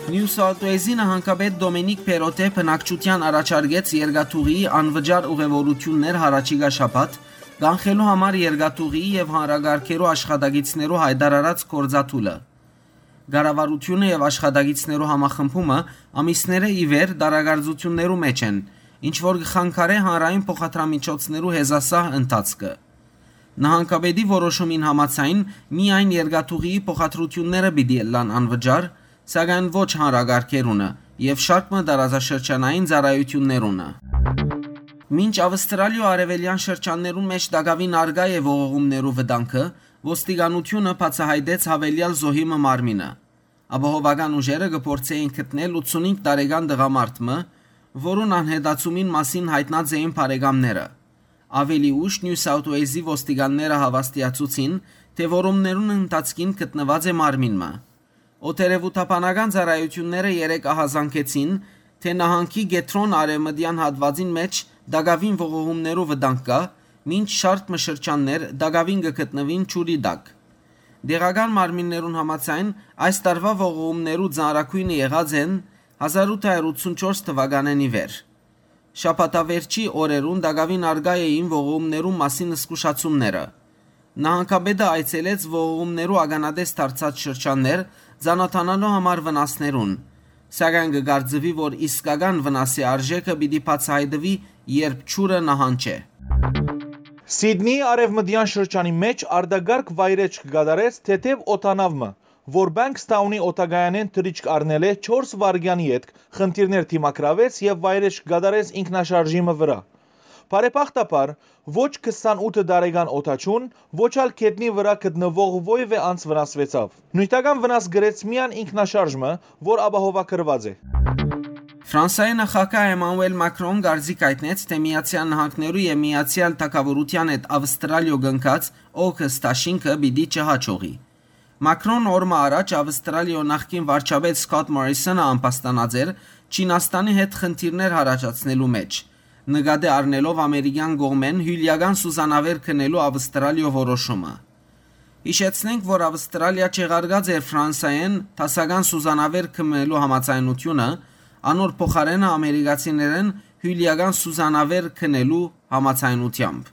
Նիու Սաութ Ուելզի նահանգապետ Դոմինիկ Փերոտէ բնակչութեան առաջարկեց երկաթուղիի անվճար ուղևորութիւններ յառաջիկայ շաբաթ, կանխելու համար երկաթուղիի եւ հանրակարգերու աշխատակիցներու յայտարարած գործադուլը։ Կառավարութիւնը եւ աշխատակիցներու համախմբումը ամիսներէ ի վեր տարակարծութիւններու մէջ են, ինչ որ կը խանգարէ հանրային փոխադրամիջոցներու հեզասահ ընթացքը։ Նահանգապետի որոշումին համաձայն, միայն երկաթուղիի փոխադրութիւնները պիտի ըլլան անվճար, սակայն ոչ հանրակարգերունը եւ շարք մը տարածաշրջանային ծառայութիւններունը։ Մինչ Ավստրալիոյ արեւելեան շրջաններուն մէջ տակաւին առկայ է ողողումներու վտանգը, ոստիկանութիւնը բացայայտեց յաւելեալ զոհի մը մարմինը։ Ապահովական ուժերը կը փորձէին գտնել ութսունհինգ տարեկան տղամարդ մը, որուն անհետացումին մասին յայտնած էին բարեկամները։ Աւելի ուշ Նիու Սաութ Ուելզի ոստիկանները հաւաստիացուցին, թէ որումներուն ընթացքին գտնուած է մարմին մը։ Օդերեւութաբանական ծառայութիւնները երեկ ահազանգեցին, թէ նահանգի կեդրոն արեւմտեան հատուածին մէջ տակաւին ողողումներու վտանգ կայ, մինչ շարք մը շրջաններ տակաւին կը գտնուին ջուրի տակ։ Տեղական մարմիններուն համաձայն, այս տարուայ ողողումներու ծանրագոյնը եղած են հազար ութ հարյուր ութսունչորս թուականէն ի վեր։ Շաբաթավերջի օրերուն տակաւին առկայ էին ողողումներու մասին զգուշացումները։ Նահանգապետը այցելեց ողողումներու ականատես դարձած շրջաններ, ծանոթանալու համար վնասներուն, սակայն կը կարծուի, որ իսկական վնասի արժէքը պիտի բացայայտուի, երբ ջուրը նահանջէ։ Սիդնիի արեւմտեան շրջանի մէջ արտակարգ վայրէջք կատարեց թեթեւ օդանաւ մը, որ Պանկսթաունի օդակայանէն թռիչք առնելէ չորս վայրկեանի ետք խնդիրներ դիմագրաւեց եւ վայրէջք կատարեց ինքնաշարժի մը վրայ։ Բարեբախտաբար, ոչ քսանութ տարեկան օդաչուն, ոչ ալ գետնի վրայ գտնուող որեւէ անձ վնասուեցաւ։ Նիւթական վնաս կրեց միայն ինքնաշարժ մը, որ ապահովագրուած է։ Ֆրանսայի նախագահ Էմանուել Մակրոն կարծիք հայտնեց, թէ Միացեալ Նահանգներու եւ Միացեալ Թագաւորութեան հետ Ավստրալիոյ կնքած AUKUS դաշինքը պիտի չհաջողի։ Մակրոն օր մը առաջ Ավստրալիոյ նախկին վարչապետ Սքոթ Մորիսոնը ամբաստանած էր Չինաստանի հետ խնդիրներ յառաջացնելու մէջ, նկատի առնելով ամերիկեան կողմէն հիւլեական սուզանավեր գնելու Ավստրալիոյ որոշումը։ Յիշեցնենք, որ Ավստրալիա չեղարկած էր Ֆրանսայէն դասական սուզանավեր գնելու համաձայնութիւնը, անոր փոխարէնը ամերիկացիներէն հիւլեական սուզանավեր գնելու համաձայնութեամբ։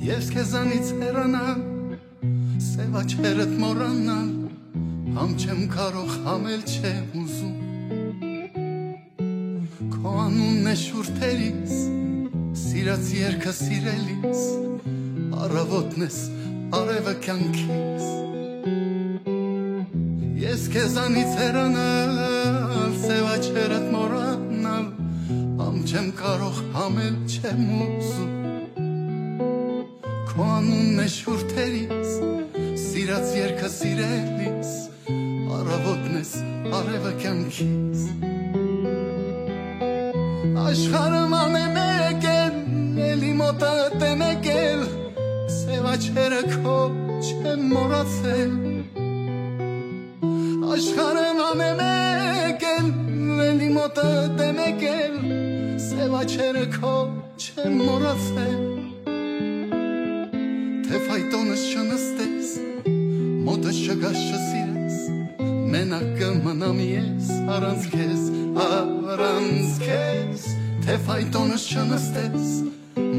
Ես քեզանից հեռանալ, սեւ աչքերդ մոռանալ, համ չեմ կարող, համ էլ չեմ ուզում։ Քո անունն է շուրթերիս, սիրած երկը սիրելիս, առավոտն ես, արևը կյանքիս։ Ես քեզանից հեռանալ, սեւ աչքերդ մոռանալ, համ չեմ կարող, համ էլ չեմ ուզում։ Քո անունն է շուրթերիս, սիրած երկը սիրելիս, առավոտն ես, արևը կյանքիս։ Աշխարհը ման է մեկ էլ, էլի մոտդ է մեկ էլ, սեւ աչքերը քո չեմ մոռացել։ Աշխարհը ման է մեկ էլ, էլի մոտդ է մեկ էլ, սեւ աչքերը քո չեմ մոռացել, թէ ֆայտոնս չնստես, մոտս չգաս, չսիրես, մենակ կը մնամ ես առանց քեզ, առանց քեզ, թէ ֆայտոնս չնստես,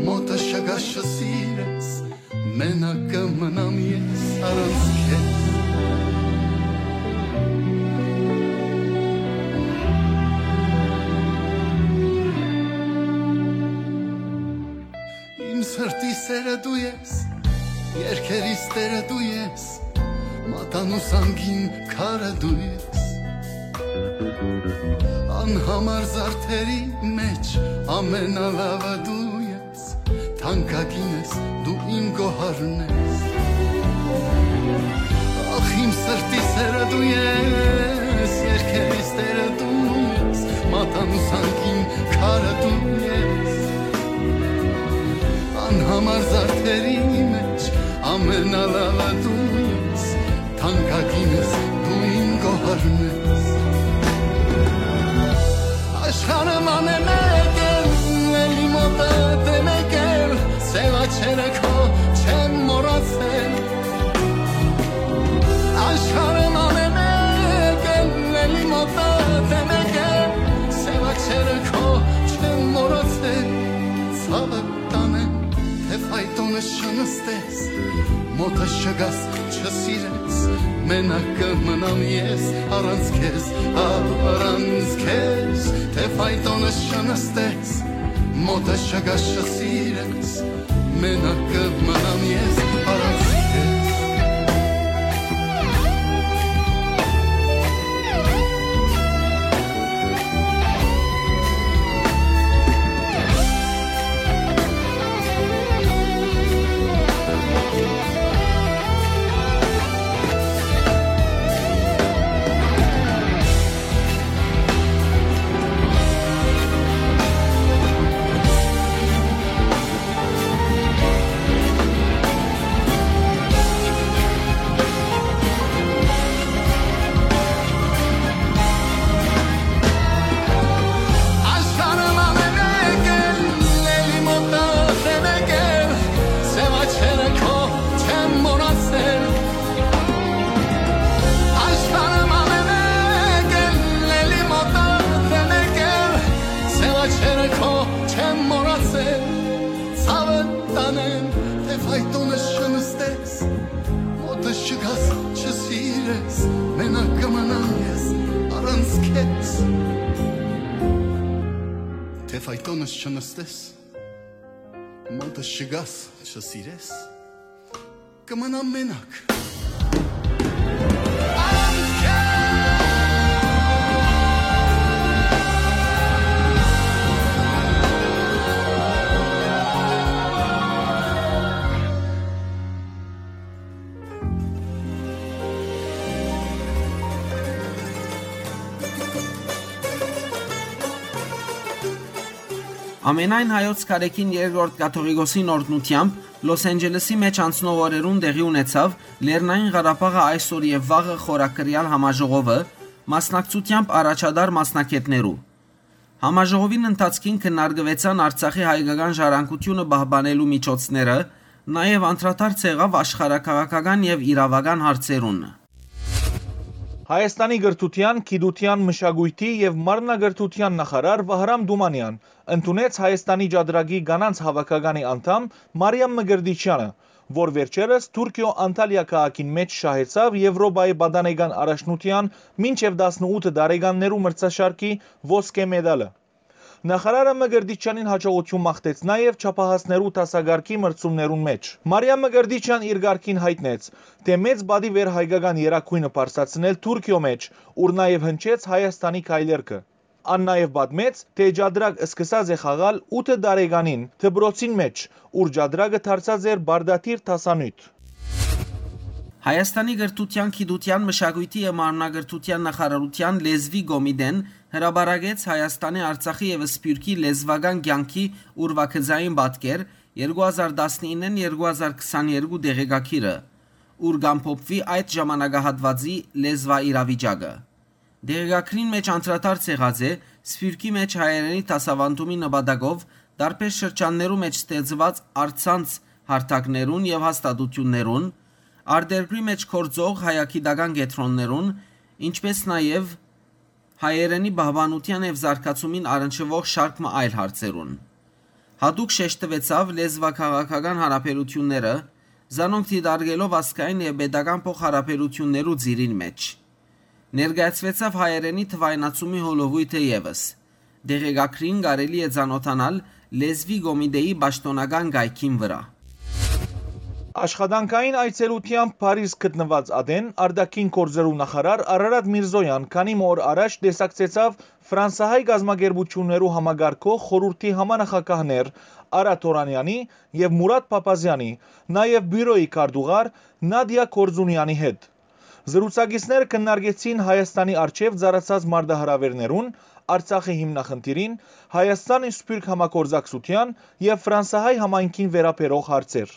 մոտս չգաս, չսիրես, մենակ կը մնամ ես առանց քեզ։ Իմ սրտի սերը դու ես, երկերիս տերը դու ես, մատանու սանքին քարը դու ես։ Անհամար զարդերի մեջ ամենալավը դու ես, թանկագին ես, դու իմ գոհարն ես։ Ախ, իմ սրտի սերը դու ես, երկերիս տերը դու ես, մատանու սանքին քարը դու ես։ Անհամար զարդերի մեջ ամենալավը դու ես, թանկագին ես, դու իմ գոհարն ես։ Աշխարհը ման է մեկ էլ, էլի մոտդ է մեկ էլ, սեւ աչքերը քո չեմ մոռացել։ Աշխարհը ման է մեկ էլ, էլի մոտդ է մեկ էլ, սեւ աչքերը քո չեմ մոռացել։ Ցաւը տանեմ, թէ ֆայտոնս չնստես, մոտս չգաս, չսիրես, մենակ կը մնամ ես առանց քեզ, առանց քեզ, թէ ֆայտոնս չնստես, մոտս չգաս, չսիրես, մենակ կը մնամ ես առանց քեզ։ Տունս չնստես, մոտս չգաս, չսիրես, կմնամ մենակ։ Ամենայն հայոց կարեքին երկրորդ կաթողիկոսին օրհնութեամբ Լոս Անջելեսի մէջ անցնող օրերուն տեղի ունեցաւ Լեռնային Ղարաբաղը այսօր եւ վաղը խորակրեալ համաժողովը, մասնակցութեամբ առաջատար մասնագէտներու։ Համաժողովին ընթացքին քննարկուեցան Արցախի հայկական ժառանգությունը պահպանելու միջոցները, նաեւ անդրադարձ եղաւ աշխարհաքաղաքական եւ իրաւական հարցերուն։ Հայաստանի կրթութեան, գիտութեան, մշակոյթի եւ մարմնակրթութեան նախարար Վահրամ Դումանեան ընդունեց Հայաստանի Ճատրակի կանանց հաւաքականի անդամ Մարիամ Մկրտիչեանը, որ վերջերս Թուրքիոյ Անտալիա քաղաքին մէջ շահեցաւ Եւրոպայի պատանեկան առաջնութեան մինչեւ տասնութ տարեկաններու մրցաշարքի ոսկէ մեդալը։ Նախարարը Մկրտիչեանին յաջողութիւն մաղթեց նաեւ չափահասներու դասակարգի մրցումներուն մէջ։ Մարիամ Մկրտիչեան իր կարգին յայտնեց, թէ մեծ պատիւ էր հայկական երագոյնը բարձրացնել Թուրքիոյ մէջ, ուր նաեւ հնչեց Հայաստանի քայլերգը։ Ան նաեւ պատմեց, թէ Ճատրակ սկսած է խաղալ ութ տարեկանին դպրոցին մէջ, ուր Ճատրակը դարձած էր պարտադիր դասանիւթ։ Հայաստանի կրթութեան, գիտութեան, մշակոյթի եւ մարմնակրթութեան նախարարութեան լեզուի կոմիտեն հրապարակեց Հայաստանի, Արցախի եւ Սփիւռքի լեզուական կեանքի ուրվագծային պատկեր երկու հազար տասնիննէն երկու հազար քսաներկու տեղեկագիրը, ուր կ'ամփոփուի այդ ժամանակահատուածի լեզուաիրավիճակը։ Տեղեկագրին մէջ անդրադարձ եղած է Սփիւռքի մէջ հայերէնի դասավանդումի նպատակով տարբեր շրջաններու մէջ ստեղծուած առցանց հարթակներուն եւ հաստատութիւններուն, արտերկրի մէջ գործող հայագիտական կեդրոններուն, ինչպէս նաեւ հայերէնի պահպանութեան եւ զարգացումին առնչուող շարք մը այլ հարցերուն։ Յատուկ շեշտուեցաւ լեզուաքաղաքական յարաբերութիւնները, զանոնք դիտարկելով ազգային եւ պետական փոխհարաբերութիւններու ծիրին մէջ։ Ներկայացուեցաւ հայերէնի թուայնացումի հոլովոյթը եւս։ Տեղեկագրին կարելի է ծանօթանալ լեզուի կոմիտեի պաշտօնական կայքին վրայ։ Աշխատանքային այցելութեամբ Փարիզ գտնուած ատեն արտաքին գործերու նախարար Արարատ Միրզոյան քանի մը օր առաջ տեսակցեցաւ ֆրանսահայ կազմակերպութիւններու համակարգող խորհուրդի համանախագահներ Արա Թորանեանի եւ Մուրատ Փափազեանի, նաեւ բիւրոյի քարտուղար Նադիա Կորձունեանի հետ։ Զրուցակիցները քննարկեցին Հայաստանի առջեւ ծառացած մարտահրաւէրներուն, Արցախի հիմնախնդիրին, Հայաստան-Սփիւռք համագործակցութեան եւ ֆրանսահայ համայնքին վերաբերող հարցեր։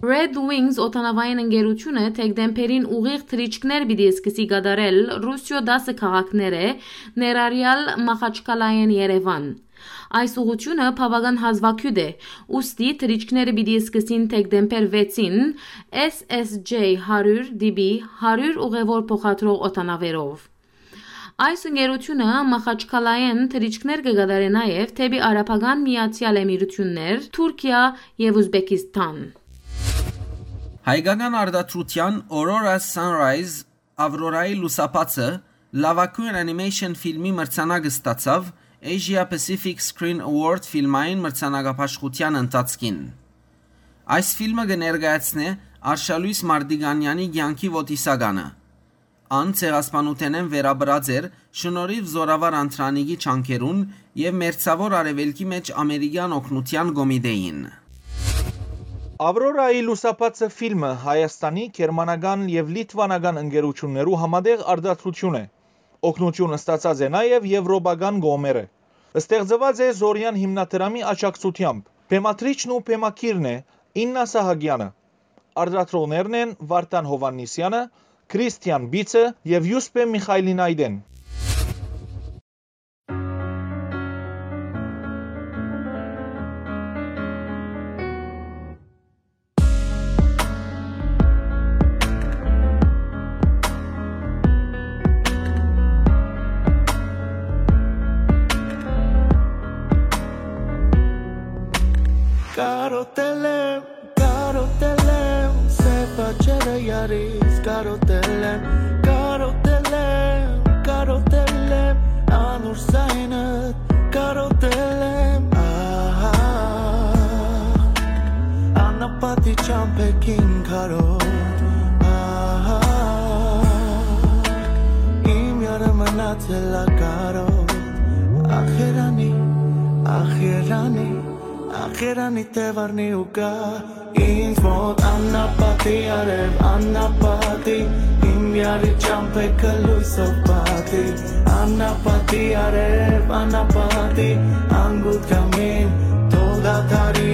Red Wings օդանավային ընկերութիւնը դեկտեմբերին ուղիղ թռիչքներ պիտի սկսի կատարել Ռուսիոյ տասը քաղաքներէ, ներառյալ Մախաչքալայէն Երեւան։ Այս ուղղութիւնը բաւական հազուագիւտ է, ուստի թռիչքները պիտի սկսին դեկտեմբեր վեցին S S J հարիւր D B հարիւր ուղեւոր փոխադրող օդանավերով։ Այս ընկերութիւնը Մախաչքալայէն թռիչքներ կը կատարէ նաեւ դէպի Արաբական Միացեալ Էմիրութիւններ, Թուրքիա եւ Ուզբեկիստան։ Հայկական արտադրութեան Aurora Sunrise, Ավրորայի լուսաբացը, լաւագոյն անիմեյշն ֆիլմի մրցանակ ստացաւ Asia Pacific Screen Award ֆիլմային մրցանակաբաշխութեան ընթացքին։ Այս ֆիլմը կը ներկայացնէ Արշալոյս Մարտիկանեանի կեանքի ոտիսականը։ Ան ցեղասպանութենէն վերապրած էր շնորհիւ Զօրավար Անդրանիկի ջանքերուն եւ Մերձաւոր Արեւելքի մէջ ամերիկեան օգնութեան կոմիտեին։ Ավրորայի լուսաբացը ֆիլմը Հայաստանի, գերմանական եւ լիտվանական ընկերութիւններու համատեղ արտադրութիւն է։ Օգնութիւն ստացած է նաեւ եվրոպական կողմերը։ Ստեղծուած է Զորեան հիմնադրամի աջակցութեամբ։ Բեմադրիչն ու բեմագիրն է Իննա Սահակեանը։ Արտադրողներն են Վարդան Յովհաննիսեանը, Քրիստիան Բիցը եւ Յուսպէ Միխայլինայտեն։ Կարոտել եմ, կարոտել եմ, սեփ աչերը յարից կարոտել եմ, կարոտել եմ, կարոտել եմ, անուր զայնդ կարոտել Չամբեքին քարով, ահա, իմ յարը մնացել ա կարով։ Ախ երանի, ախ երանի, ախ երանի, թե վարնի ու գա ինձ մոտ աննապատի արև, աննապատի, իմ յարի չամբեքը լոյսով պատի, աննապատի արև, աննապատի, անգութ կամին, թող դադարի,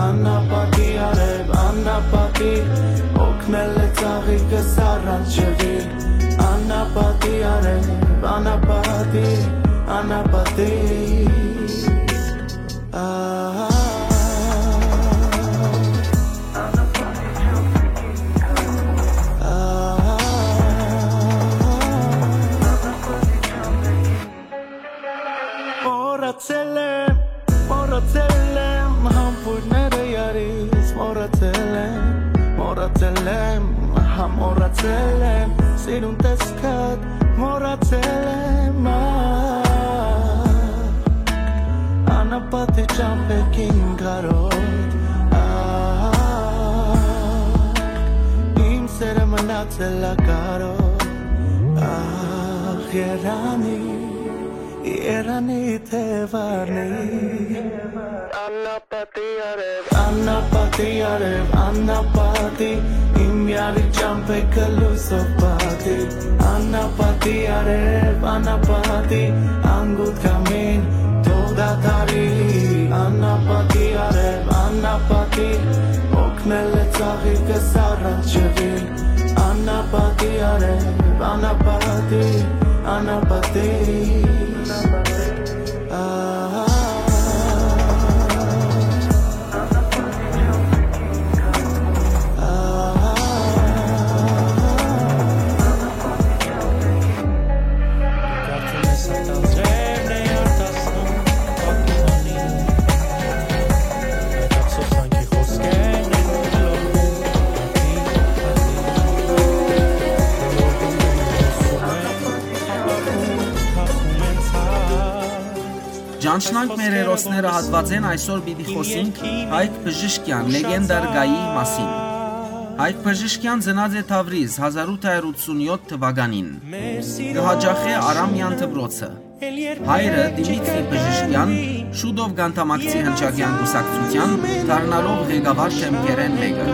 աննապատի արև, աննապատի, օգնել է ծաղիկս առանց ջրի, աննապատի արև, աննապատի, աննապատի։ Ահա, ահա, մոռացել եմ, մոռացել եմ, համբույրները յարից մոռացել եմ, մոռացել եմ, հա, մոռացել եմ, սիրուն տեսքդ մոռացել եմ, ա, անապատի ճամբեքին կարոտ, ա, իմ սերը մնացել ա կարոտ, ախ, երանի, երանի, թե վարնի։ Անապատի արև, անապատի արև, անապատի, իմ յարի ճամբեքը լոյսով պատի, անապատի արև, անապատի, անգութ կամին, թող դադարի, անապատի արև, անապատի, օգնել է ծաղիկս առանց ջրի, անապատի արև, անապատի, անապատի, ահա։ Ճանչնանք մեր հերոսները հատուածէն այսօր պիտի խօսինք Հայկ Բժիշկեան, լեգենդար գայի մասին։ Հայկ Բժիշկեան ծնած է Թավրիզ հազար ութ հարյուր ութսունյոթ թուականին։ Կը յաճախէ Արամեան դպրոցը։ Հայրը՝ Դիմիտրի Բժիշկեան, շուտով կ'անդամակցի հնչակեան կուսակցութեան, դառնալով ղեկավար դեմքերէն մէկը։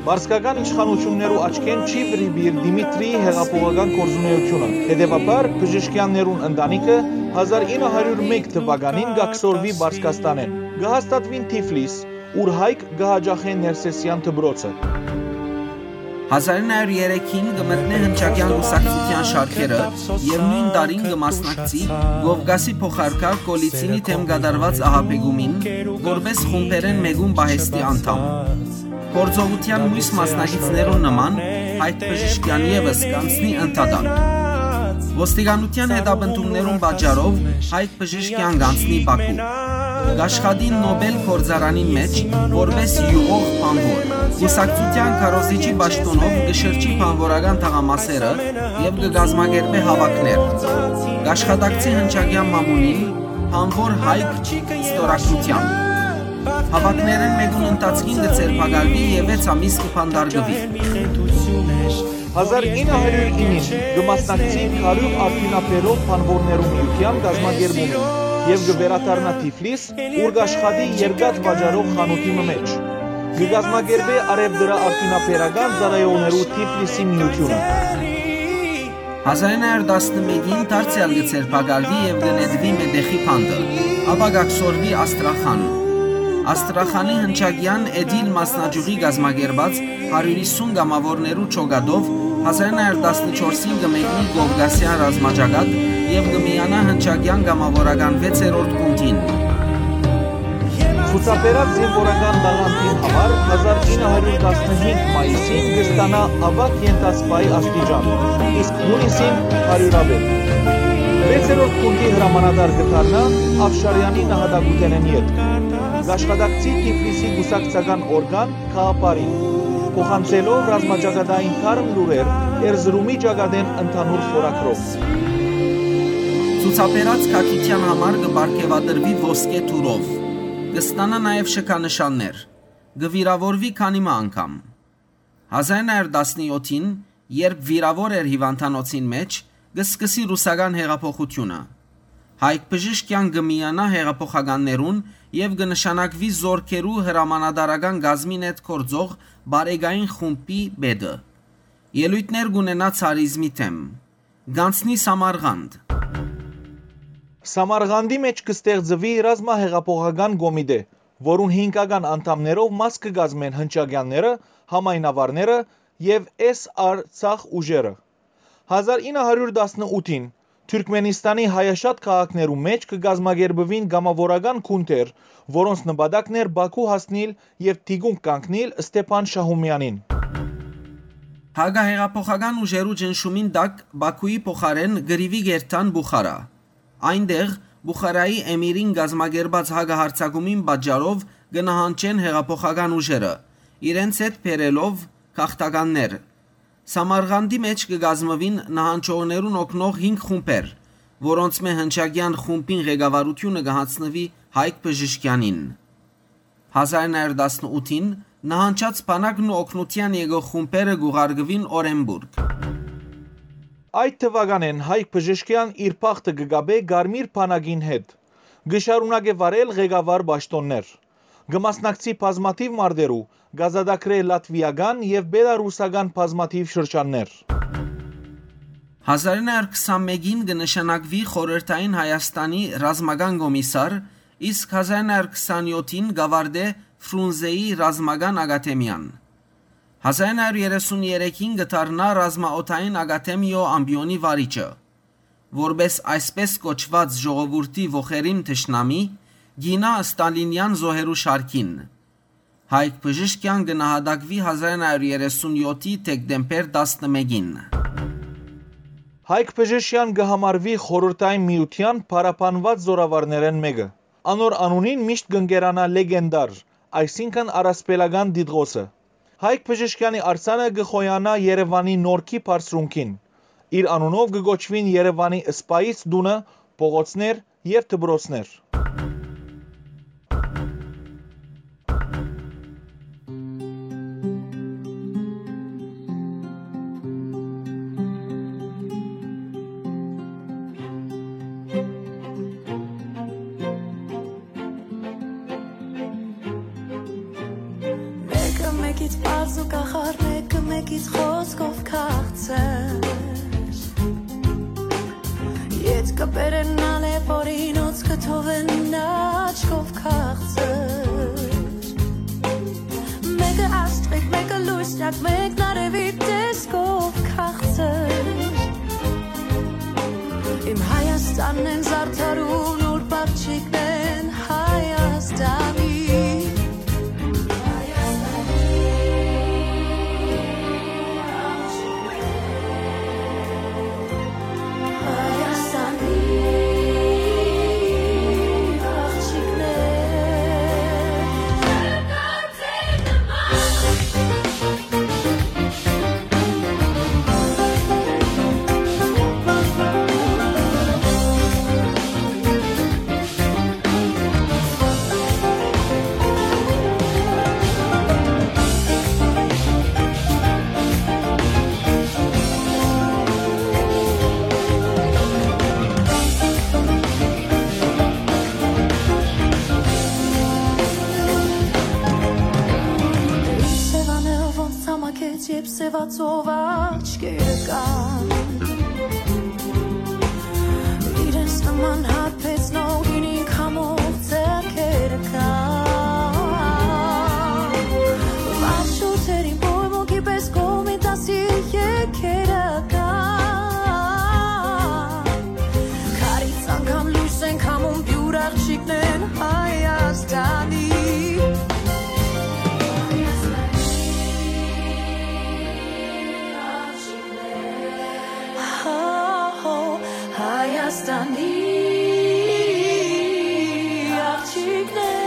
Պարսկական իշխանութիւններու աչքէն չի վրիպիր Դիմիտրիի հեղափոխական գործունէութիւնը։ Հետեւաբար, Բժիշկեաններուն ընտանիքը հազար ինը հարիւր մէկ թուականին կ'աքսորուի Պարսկաստանէն։ Կը հաստատուին Թիֆլիս, ուր Հայկ կը յաճախէ Ներսեսեան դպրոցը։ Հազար ինը հարիւր երեքին կը մտնէ հնչակեան կուսակցութեան շարքերը եւ նոյն տարին կը մասնակցի Կովկասի փոխարքար Կոլիցինի դէմ կատարուած ահաբեկումին, որպէս խումբերէն մէկուն պահեստի անդամ։ Գործողութեան միւս մասնակիցներուն նման, Հայկ Բժիշկեան եւս կ'անցնի ընդհատակ։ Ոստիկանութեան հետապնդումներուն պատճառով Հայկ Բժիշկեան կ'անցնի Բաքու։ Կ'աշխատի Նոբել գործարանին մէջ, որպէս յուղող բանվոր։ Կուսակցութեան քարոզիչի պաշտօնով կը շրջի բանվորական թաղամասերը եւ կը կազմակերպէ հաւաքներ։ Կ'աշխատակցի հնչակեան մամուլին, բանվոր Հայկ ստորագրութեան։ Հաւաքներէն մէկուն ընթացքին կը ձերբակալուի եւ վեց ամիս կը բանտարկուի։ Հազար ինը հարիւր ինին կը մասնակցի Քարիւղ արդիւնաբերող բանվորներու միութեան կազմակերպումին եւ կը վերադառնայ Թիֆլիս, ուր կ'աշխատի երկաթ վաճառող խանութի մը մէջ։ Կը կազմակերպէ արեւտրաարդիւնաբերական ծառայողներու Թիֆլիսի միութիւնը։ Հազար ինը հարիւր տասնմէկին դարձեալ կը ձերբակալուի եւ կը նետուի մետեխի բանտը, ապա կ'աքսորուի Աստրախան։ Աստրախանի հնչակեան Էդիլ մասնաճիւղի կազմակերպած հարիւր յիսուն կամաւորներու ջոկատով հազար ինը հարիւր տասնչորսին կը մեկնի Կովկասեան ռազմաճակատ եւ կը միանայ հնչակեան կամաւորական վեցերորդ գունդին։ Ցուցաբերած զինուորական տաղանդին համար հազար ինը հարիւր տասնհինգ մայիսին կը ստանայ աւագ ենթասպայի աստիճան, իսկ յունիսին՝ հարիւրաւէտ։ Վեցերորդ գունդի հրամանատար կը դառնայ Աֆշարեանի նահատակութենէն ետք։ Կ'աշխատակցի Թիֆլիսի կուսակցական օրգան Քաապարին, փոխանցելով ռազմաճակատային թարմ լուրեր Էրզրումի ճակատէն ընդհանուր խորագրով։ Ցուցաբերած քաջութեան համար կը պարգեւատրուի ոսկէ թուրով։ Կը ստանայ նաեւ շքանշաններ։ կը վիրաւորուի քանի մը անգամ։ Հազար նոյ հարիւր տասնեօթին, երբ վիրաւոր էր հիւանդանոցին մէջ, կը սկսի ռուսական յեղափոխութիւնը։ Հայկ Բժիշկեան կը միանայ յեղափոխականներուն եւ կը նշանակուի զօրքերու հրամանատարական կազմին հետ գործող բարեկային խումբի պետը։ Ելոյթներ կ'ունենայ ցարիզմի դէմ։ Կ'անցնի Սամարղանդ։ Սամարղանդի մէջ կը ստեղծուի ռազմահեղափոխական կոմիտէ, որուն հինգական անդամներով մաս կը կազմեն հնչակեանները, համայնավարները եւ Էս Արցախ ուժերը։ Հազար ինը հարիւր տասնութին Թուրքմենիստանի հայաշատ քաղաքներու մէջ կը կազմակերպուին կամաւորական գունդեր, որոնց նպատակն էր Բաքու հասնիլ եւ թիկունք կանգնիլ Ստեփան Շահումեանին։ Հակահեղափոխական ուժերու ճնշումին տակ Բաքուի փոխարէն կռիւի կ'երթան Բուխարա։ Այնտեղ Բուխարայի էմիրին կազմակերպած հակահարձակումին պատճառով կը նահանջեն հեղափոխական ուժերը, իրենց հետ բերելով գաղթականներ։ Սամարղանդի մէջ կը կազմուին նահանջողներուն օգնող հինգ խումբեր, որոնցմէ հնչակեան խումբին ղեկավարութիւնը կը յանձնուի Հայկ Բժիշկեանին։ Հազար նոյ հարիւր տասնութին նահանջած բանակն ու օգնութեան եկող խումբերը կ'ուղարկուին Օրենբուրգ։ Այդ թուականէն Հայկ Բժիշկեան իր բախտը կը կապէ Կարմիր բանակին հետ։ Կը շարունակէ վարել ղեկավար պաշտօններ։ Կը մասնակցի բազմաթիւ մարտերու, կ'ազատագրէ լատվիական եւ պելառուսական բազմաթիւ շրջաններ։ Հազար նոյ հարիւր քսանմէկին կը նշանակուի Խորհրդային Հայաստանի ռազմական կոմիսար, իսկ հազար նոյ հարիւր քսանեօթին կ'աւարտէ Ֆրունզեի ռազմական ակադեմիան։ Հազար նոյ հարիւր երեսուն երեքին կը դառնայ ռազմաօդային ակադեմիոյ ամպիոնի վարիչը։ Որպէս այսպէս կոչուած ժողովուրդի ոխերիմ թշնամի, կ'իյնայ ստալինեան զոհերու շարքին։ Հայկ Բժիշկեան կը նահատակուի հազար նոյ հարիւր երեսուն եօթի դեկտեմբեր տասնմէկին։ Հայկ Բժիշկեան կը համարուի Խորհրդային Միութեան փառաբանուած զօրավարներէն մէկը։ Անոր անունին միշտ կ'ընկերանայ լեգենդար, այսինքն առասպելական տիտղոսը։ Հայկ Բժիշկեանի արձանը կը խոյանայ Երեւանի Նորքի բարձրունքին։ Իր անունով կը կոչուին Երեւանի սպայից տունը, փողոցներ եւ դպրոցներ։ Մէկը մէկից պարզ ու կախարդ, մէկը մէկից խօսքով քաղցր։ Ետ կը բերեն ալեւ օրինոց, կը թողեն աչքով քաղցր։ Մէկը աստղիկ, մէկը լուսնյակ, մէկն արեւի տեսքով քաղցր։ Իմ Հայաստանն են զարդարուն, ուրբաթ չիկնեն Հայաստանի։ Սեւաները ոնց ցամաքեց, երբ սեւացող աչքերը կան։ Իրենց նման հարբեցնող ինիք համող ձեռքերը կան։ Վարժութերին պոյմոկի պես կոմիտասի եկերը կան։ Քարից անգամ լույս են քամում, պիւր աղջիկներն Հայաստանի։ Հայաստանի աղջիկներ։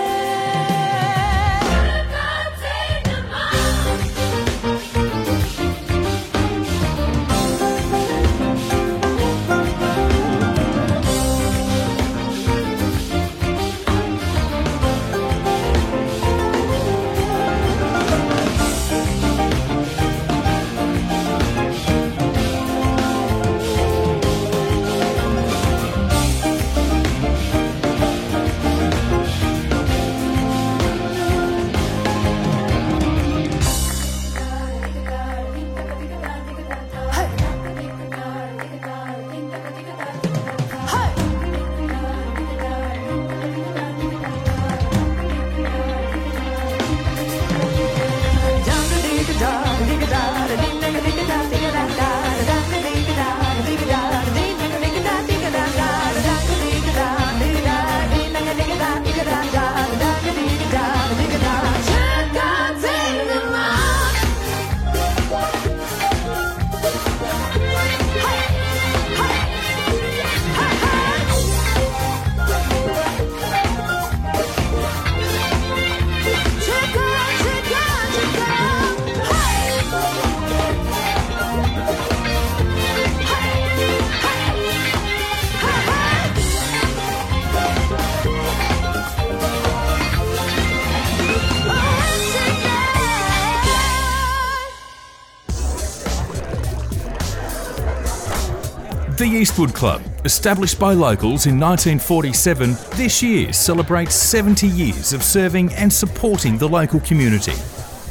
The Eastwood Club, established by locals in nineteen forty-seven, this year celebrates seventy years of serving and supporting the local community.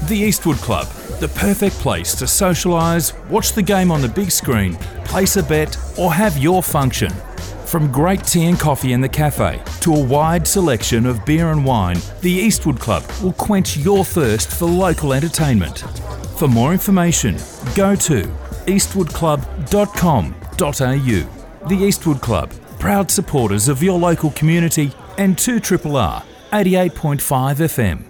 The Eastwood Club, the perfect place to socialise, watch the game on the big screen, place a bet, or have your function. From great tea and coffee in the cafe to a wide selection of beer and wine, the Eastwood Club will quench your thirst for local entertainment. For more information, go to eastwood club dot com dot a u. The Eastwood Club, proud supporters of your local community and two triple R, eighty-eight point five F M.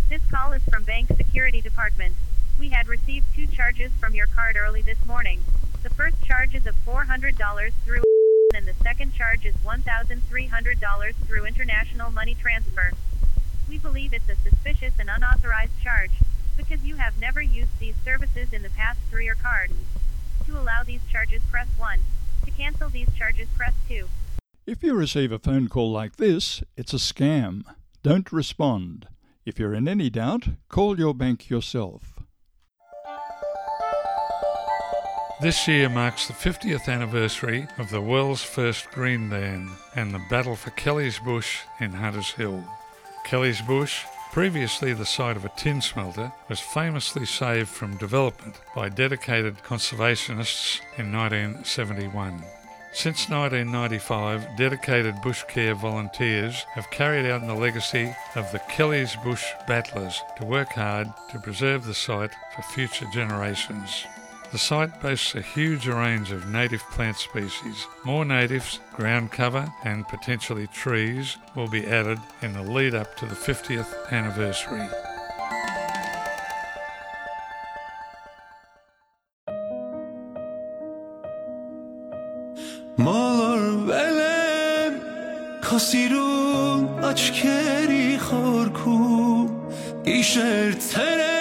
This call is from Bank Security Department. We had received two charges from your card early this morning. The first charge is of four hundred dollars through and the second charge is one thousand three hundred dollars through international money transfer. We believe it's a suspicious and unauthorized charge because you have never used these services in the past through your card. To allow these charges, press one. To cancel these charges, press two. If you receive a phone call like this, it's a scam. Don't respond. If you're in any doubt, call your bank yourself. This year marks the fiftieth anniversary of the world's first Green Ban and the battle for Kelly's Bush in Hunters Hill. Kelly's Bush, previously the site of a tin smelter, was famously saved from development by dedicated conservationists in nineteen seventy-one. Since nineteen ninety-five, dedicated bush care volunteers have carried out the legacy of the Kelly's Bush Battlers to work hard to preserve the site for future generations. The site boasts a huge range of native plant species. More natives, ground cover, and potentially trees will be added in the lead up to the fiftieth anniversary. Մոլորվել եմ քո սիրուն աչքերի խորքում, գիշեր ցերեկ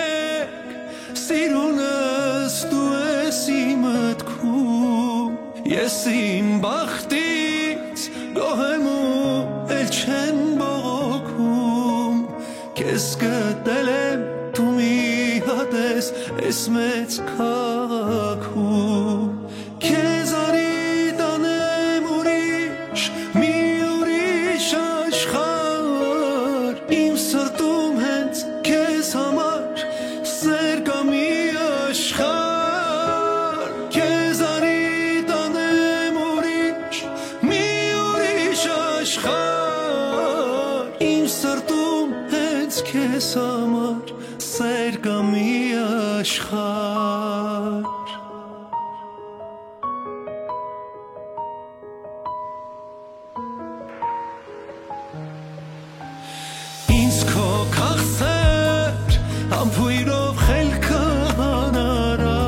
սիրունս դու ես իմ մտքում, ես իմ բախտից գոհ եմ ու էլ չեմ բողոքում, քեզ գտել եմ դու մի հատ ես այս մեծ քաղաքում, քեզ արի տանեմ ուրիշ, մի ուրիշ աշխարհ, իմ սրտում հենց քեզ համար սեր կա մի աշխարհ, քեզ արի տանեմ ուրիշ, մի ուրիշ աշխարհ, իմ սրտում հենց քեզ համար սեր կա մի աշխարհ։ Ինձ քո քաղցր համբոյրով խելքը հանարա,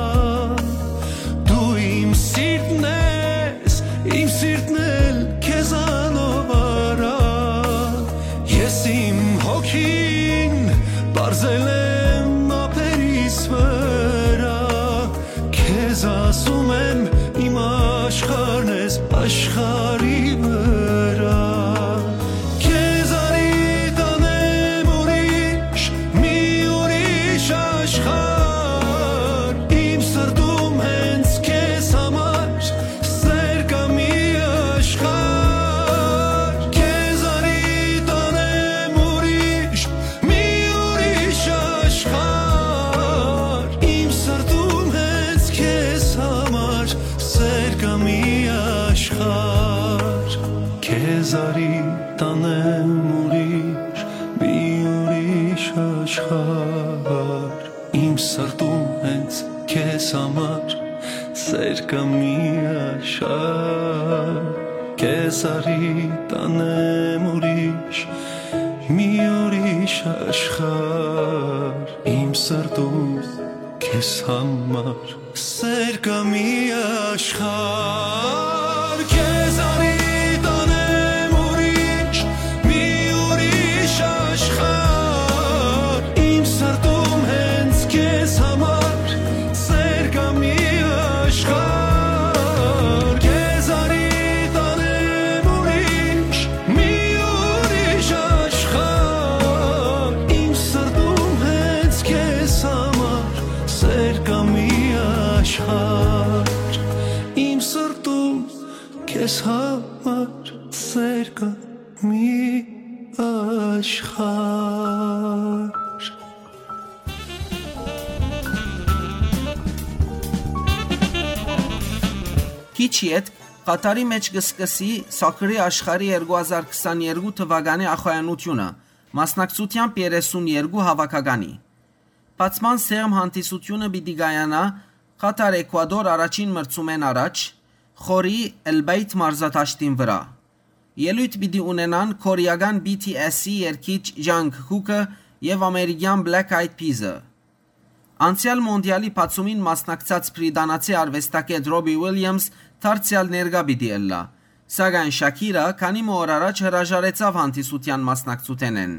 դու իմ սիրտն ես, իմ սիրտն էլ քեզանով արա, ես իմ հոգին պարզել եմ ափերիս վրա, քեզ ասում եմ իմ աշխարհն ես աշխարհի վրա, քեզ արի տանեմ ուրիշ, մի ուրիշ աշխարհ, իմ սրտում հենց քեզ համար սեր կա մի աշխարհ, քեզ արի տանեմ ուրիշ, մի ուրիշ աշխարհ, իմ սրտում հենց քեզ համար սեր կա մի աշխարհ, քեզ արի տանեմ ուրիշ, մի ուրիշ աշխարհ, իմ սրտում հենց քեզ համար սեր կա մի աշխարհ, քեզ արի տանեմ ուրիշ, մի ուրիշ աշխարհ, իմ սրտում քեզ համար սեր կա մի աշխարհ, քեզ արի տանեմ ուրիշ, մի ուրիշ աշխարհ, իմ սրտում հենց քեզ համար սեր կա մի աշխարհ, քեզ արի տանեմ ուրիշ, մի ուրիշ աշխարհ, իմ սրտում հենց քեզ համար սեր կա Համար սեր կա մի աշխարհ։ Քիչ յետ Ղաթարի մէջ կը սկսի Սոքերի աշխարհի երկու հազար քսաներկու թուականի ախոյանութիւնը, մասնակցութեամբ երեսուն երկու հաւաքականի։ Բացման սեղմ հանդիսութիւնը պիտի կայանայ Ղաթար Էքուադոր առաջին մրցումէն առաջ, խորի Էլբեյթ մարզադաշտին վրայ։ Ելոյթ պիտի ունենան կորեական B T S-ի երգիչ Ջանգ Քուքը եւ ամերիկեան Black Eyed Peas-ը։ Անցեալ մոնդիալի բացումին մասնակցած բրիտանացի արուեստագէտ Ռոբի Ուիլյամս դարձեալ ներկայ պիտի ըլլայ, սակայն Շաքիրա քանի մը օր առաջ հրաժարեցաւ հանդիսութեան մասնակցութենէն,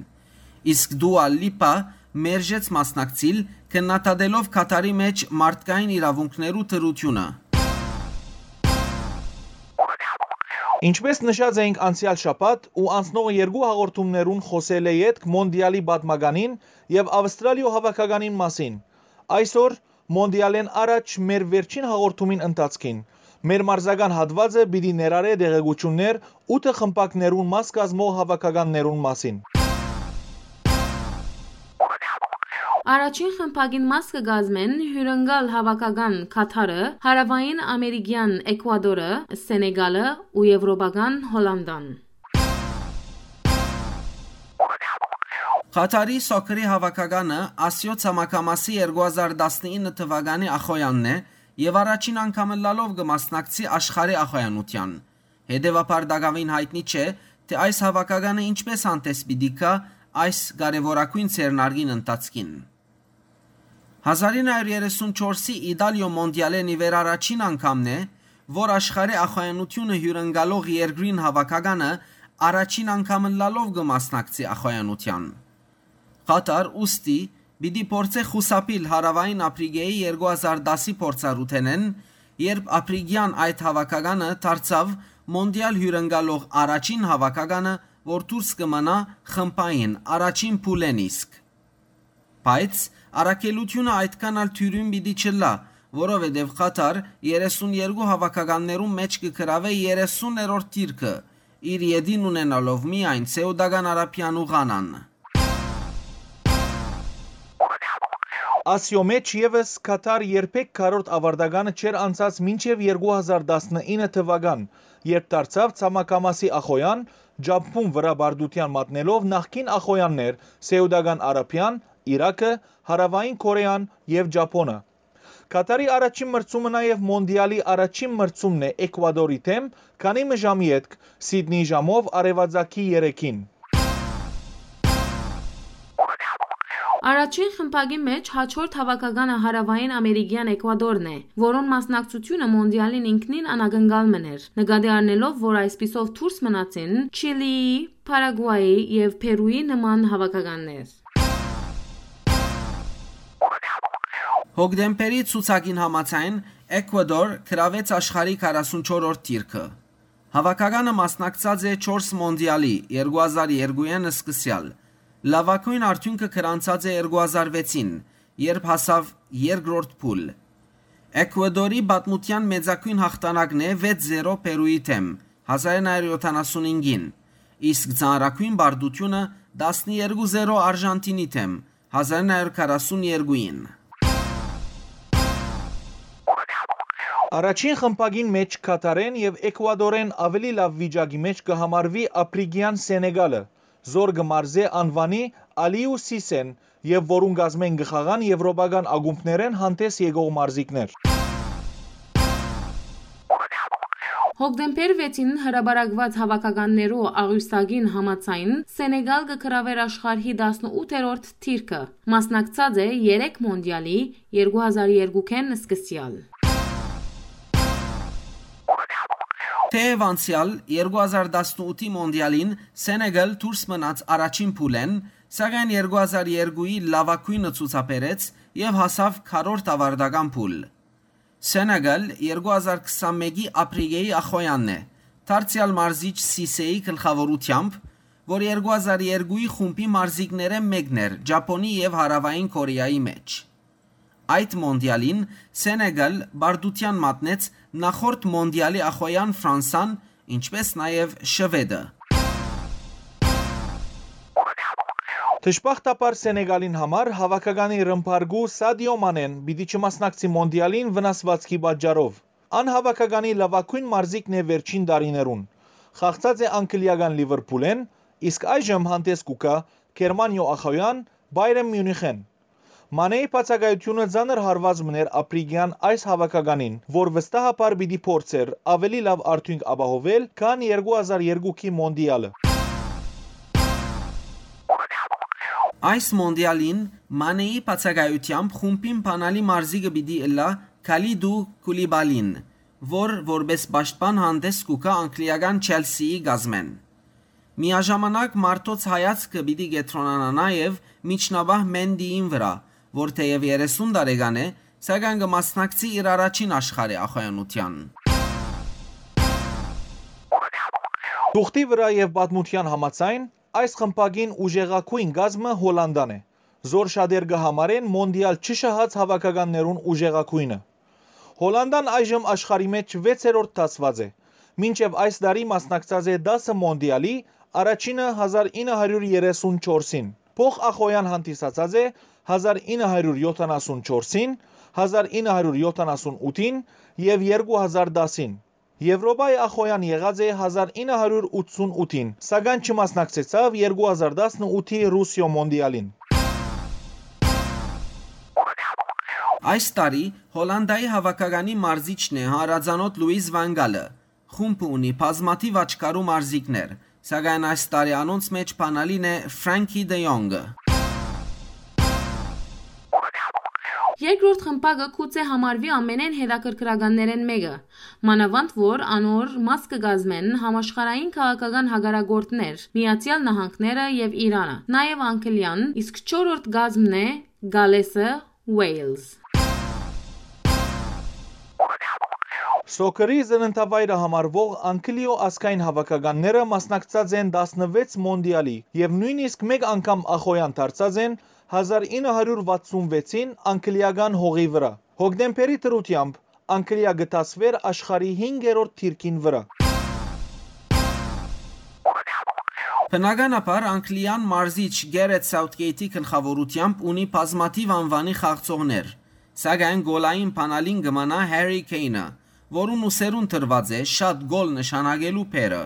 իսկ Դուա Լիպա մերժեց մասնակցիլ՝ քննադատելով Քաթարի մէջ մարդկային իրաւունքներու դրութիւնը։ Ինչպէս նշած էինք անցեալ շաբաթ ու անցնող երկու հաղորդումներուն, խօսելէ ետք մոնդիալի պատմականին եւ Աւստրալիոյ հաւաքականին մասին, այսօր մոնդիալէն առաջ մեր վերջին հաղորդումին ընթացքին մեր մարզական հատուածը պիտի ներառէ տեղեկութիւններ ութը խմբակներուն մաս կազմող հաւաքականներուն մասին։ Առաջին խմբակին մաս կը կազմեն հիւրընկալ հաւաքական Քաթարը, Հարաւային Ամերիկեան Էքուադորը, Սենեգալը ու Եւրոպական Հոլանդան։ Ղաթարի Սոքերի հաւաքականը Ասիոյ ցամաքամասի երկու հազար տասնինը թուականի ախոյանն է եւ առաջին անգամ ըլլալով կը մասնակցի աշխարհի ախոյանութեան։ Հետեւաբար տակաւին յայտնի չէ, թէ այս հաւաքականը ինչպէս հանդէս պիտի գայ այս կարեւորագոյն ձեռնարկին ընթացքին։ Հազար ինը հարիւր երեսուն չորսի Իտալիոյ մոնդիալէն ի վեր առաջին անգամն է, որ աշխարհի ախոյանութիւնը հիւրընկալող երկրին հաւաքականը առաջին անգամ ըլլալով կը մասնակցի ախոյանութեան։ Ղաթար ուստի պիտի փորձէ խուսափիլ Հարաւային Ափրիկէի երկու հազար տասի փորձառութենէն, երբ ափրիկեան այդ հաւաքականը դարձաւ մոնդիալ հիւրընկալող առաջին հաւաքականը, որ դուրս կը մնայ խմբային առաջին փուլէն իսկ։ Բայց առաքելութիւնը այդքան ալ թիւրին պիտի չըլլայ, որովհետեւ Ղաթար երեսուն երկու հաւաքականներուն մէջ կը գրաւէ երեսուներորդ դիրքը, իր ետին ունենալով միայն Սէուտական Արաբիան ու Ղանան։ Ասիոյ մէջ եւս Քաթար երբեք քառորդ աւարտականը չէր անցած մինչեւ երկու հազար տասնինը թուական, երբ դարձաւ ցամաքամասի ախոյան, Ճապոն վրայ պարտութեան մատնելով նախկին ախոյաններ՝ Սէուտական Արաբիան, Իրաքը, Հարաւային Կորեան եւ Ճապոնը։ Քաթարի առաջին մրցումը նաեւ մոնդիալի առաջին մրցումն է Էքուադորի դէմ, քանի մը ժամ ետք, Սիդնի ժամով արեւածագի երեքին։ Առաջին խմբակի մէջ հաջորդ հաւաքականը Հարաւային Ամերիկեան Էքուադորն է, որուն մասնակցութիւնը մոնդիալին ինքնին անակնկալ մըն էր, նկատի առնելով, որ այսպիսով դուրս մնացին Չիլիի, Փարագուայի եւ Փերուի նման հաւաքականներ։ Հոկտեմբերի ցուցակին համաձայն՝ Էքուադոր գրաւեց աշխարհի քառասունչորրորդ դիրքը։ Հաւաքականը մասնակցած է չորս մոնդիալի՝ երկու հազար երկուին սկսեալ։ Լաւագոյն արդիւնքը գրանցած է երկու հազար վեցին, երբ հասաւ երկրորդ փուլ։ Էքուադորի պատմութեան մեծագոյն յաղթանակն է վեց զերո Պերուի դէմ՝ հազար ինը հարիւր յոթանասունհինգին, իսկ ծանրագոյն պարտութիւնը՝ տասներկու զերո Արժանթինի դէմ՝ հազար ինը հարիւր քառասուն երկուին։ Առաջին խմբակին մէջ Քաթարէն եւ Էքուադորէն աւելի լաւ վիճակի մէջ կը համարուի ափրիկեան Սենեգալը, զոր կը մարզէ անուանի Ալիու Սիսեն եւ որուն կազմէն կը խաղան եւրոպական ակումբներէն հանդէս եկող մարզիկներ։ Հոկտեմբեր վեցին հրապարակուած հաւաքականներու աղիւսագին համաձայն՝ Սենեգալ կը գրաւէր աշխարհի տասնութերորդ դիրքը, մասնակցած է երեք մոնդիալի՝ երկու հազար երկուքէն սկսեալ։ Թէեւ անցեալ երկու հազար տասնութի մոնդիալին Սենեգալ դուրս մնաց առաջին փուլէն, սակայն երկու հազար երկուի լաւագոյնը ցուցաբերեց եւ հասաւ քառորդ աւարտական փուլ։ Սենեգալ երկու հազար քսանմէկի Ափրիկէի ախոյանն է, դարձեալ մարզիչ Սիսեի գլխաւորութեամբ, որ երկու հազար երկուի խումբի մարզիկներէն մէկն էր Ճապոնի եւ Հարաւային Կորեայի մէջ։ Այդ մոնդիալին Սենեգալ պարտութեան մատնեց նախորդ մոնդիալի ախոյան Ֆրանսան ինչպէս նաեւ Շուէդը։ Դժբախտաբար Սենեգալին համար հաւաքականի ռմբարկու Սադիո Մանեն պիտի չմասնակցի Մոնդիալին վնասուածքի պատճառով։ Ան հաւաքականի լաւագոյն մարզիկն է վերջին տարիներուն։ Խաղցած է անգլիական Լիվերփուլէն, իսկ այժմ հանդէս կու գայ Գերմանիոյ ախոյեան Պայրեն Միունիխէն։ Մանեի բացակայութիւնը ծանր հարուած մըն էր Ափրիկեան այս հաւաքականին, որ վստահաբար պիտի փորձէր աւելի լաւ արդիւնք ապահովել, քան երկու հազար երկուքի Մոնդիալը։ Այս Մոնդիալին Մանեի բացակայութեամբ խումբին բանալի մարզիկը պիտի ըլլայ Քալիդու Քուլիբալին, որ որպէս պաշտպան հանդէս կու գայ անգլիական Չելսիի կազմէն։ Միաժամանակ մարդոց հայացքը պիտի կեդրոնանայ նաեւ միջնապահ Մենտիին վրայ, որ թէեւ երեսուն տարեկան է, սակայն կը մասնակցի իր առաջին աշխարհի ախոյանութեան։ Թուղթի վրայ եւ պատմութեան համաձայն, այս խմբակին ուժեղագոյն կազմը Հոլանտան է, զոր շատեր կը համարեն Մոնդիալ չշահած հաւաքականներուն ուժեղագոյնը։ Հոլանտան այժմ աշխարհի մէջ վեցերորդ դասուած է, մինչեւ այս տարի մասնակցած է տասը Մոնդիալի, առաջինը հազար ինը հարիւր երեսուն չորսին, փոխ ախոյեան հանդիսացած է հազար ինը հարիւր յոթանասուն չորսին, հազար ինը հարիւր յոթանասուն ութին եւ երկու հազար տասին։ Եւրոպայի ախոյեան եղած է հազար ինը հարիւր ութսուն ութին, սակայն չմասնակցեցաւ երկու հազար տասնութի Ռուսիոյ Մոնդիալին։ Այս տարի Հոլանտայի հաւաքականի մարզիչն է հանրածանօթ Լուիս Վան Գալը։ Խումբը ունի բազմաթիւ աչքառու մարզիկներ, սակայն այս տարի անոնց մէջ բանալին է Ֆրենքի Դը Յոնկը։ Երկրորդ խմբակը գուցէ համարուի ամենէն հետաքրքրականներէն մէկը, մանաւանդ որ անոր մաս կը կազմեն համաշխարհային քաղաքական հակառակորդներ՝ Միացեալ Նահանգները եւ Իրանը, նաեւ Անգլիան, իսկ չորրորդ կազմն է Գալէսը, Ուէյլզ։ Սոքերի ծննդավայրը համարուող Անգլիոյ ազգային հաւաքականները մասնակցած են տասնվեց Մոնդիալի եւ նոյնիսկ մէկ անգամ ախոյեան դարձած են հազար ինը հարիւր վաթսուն վեցին անգլիական հողի վրայ։ Հոկտեմբերի դրութեամբ Անգլիա կը դասուէր աշխարհի հինգերորդ դիրքին վրայ։ Բնականաբար, Անգլիան մարզիչ Գերեթ Սաութկեյթի գլխաւորութեամբ ունի բազմաթիւ անուանի խաղացողներ, սակայն գոլային բանալին կը մնայ Հարի Քեյնը, որուն ուսերուն տրուած է շատ գոլ նշանակելու բեռը։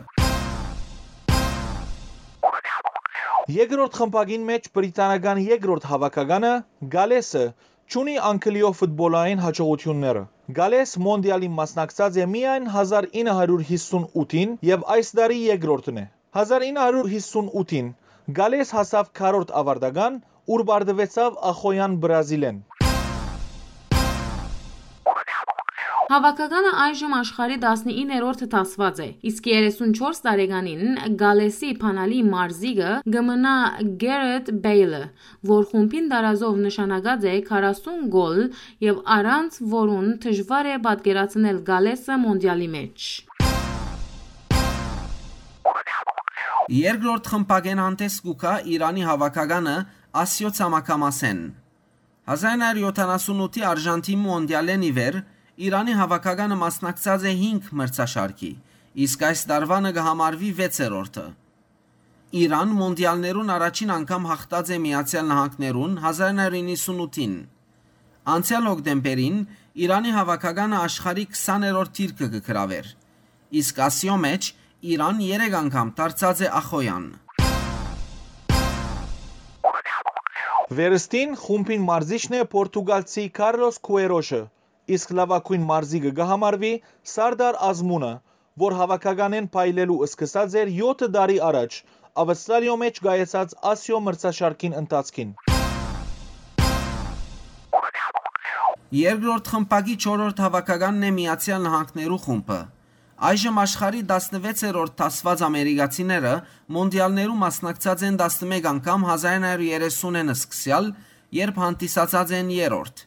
Երկրորդ խմբակին մէջ բրիտանական երկրորդ հաւաքականը՝ Գալէսը, չունի Անգլիոյ ֆուտբոլային յաջողութիւնները։ Գալէս Մոնդիալին մասնակցած է միայն հազար ինը հարիւր յիսուն ութին եւ այս տարի երկրորդն է։ Հազար ինը հարիւր յիսուն ութին Գալէս հասաւ քառորդ աւարտական, ուր պարտուեցաւ ախոյեան Բրազիլէն։ Հաւաքականը այժմ աշխարհի տասնիններորդ դասուած է, իսկ երեսուն չորս տարեկանին Գալէսի բանալի մարզիկը կը մնայ Գերեթ Բեյլը, որ խումբին տարազով նշանակած է քառասուն գոլ եւ առանց որուն դժուար է պատկերացնել Գալէսը Մոնդիալի մէջ։ Երկրորդ խմբակէն հանդէս կու գայ Իրանի հաւաքականը Ասիոյ ցամաքամասէն։ Հազար ինը հարիւր յոթանասուն ութի Արժանտինի Մոնդիալէն ի վեր Իրանի հաւաքականը մասնակցած է հինգ մրցաշարքի, իսկ այս տարուանը կը համարուի վեցերորդը։ Իրան Մոնդիալներուն առաջին անգամ յաղթած է Միացեալ Նահանգներուն հազար ինը հարիւր իննսուն ութին։ Անցեալ հոկտեմբերին Իրանի հաւաքականը աշխարհի քսաներորդ դիրքը կը գրաւէր, իսկ Ասիոյ մէջ Իրան երեք անգամ դարձած է ախոյեան։ Վերստին խումբին մարզիչն է պորտուգալցի Քարլոս Քուերոշը, իսկ լաւագոյն մարզիկը կը համարուի Սարդար Ազմունը, որ հաւաքականէն փայլելու սկսած էր եօթ տարի առաջ Աւստրալիոյ մէջ կայացած Ասիոյ մրցաշարքին ընթացքին։ Երկրորդ խմբակի չորրորդ հաւաքականն է Միացեալ Նահանգներու խումբը։ Այժմ աշխարհի տասնվեցերորդ դասուած ամերիկացիները Մոնդիալներու մասնակցած են տասնմէկ անգամ հազար ինը հարիւր երեսունէն սկսեալ, երբ հանդիսացած են երրորդ։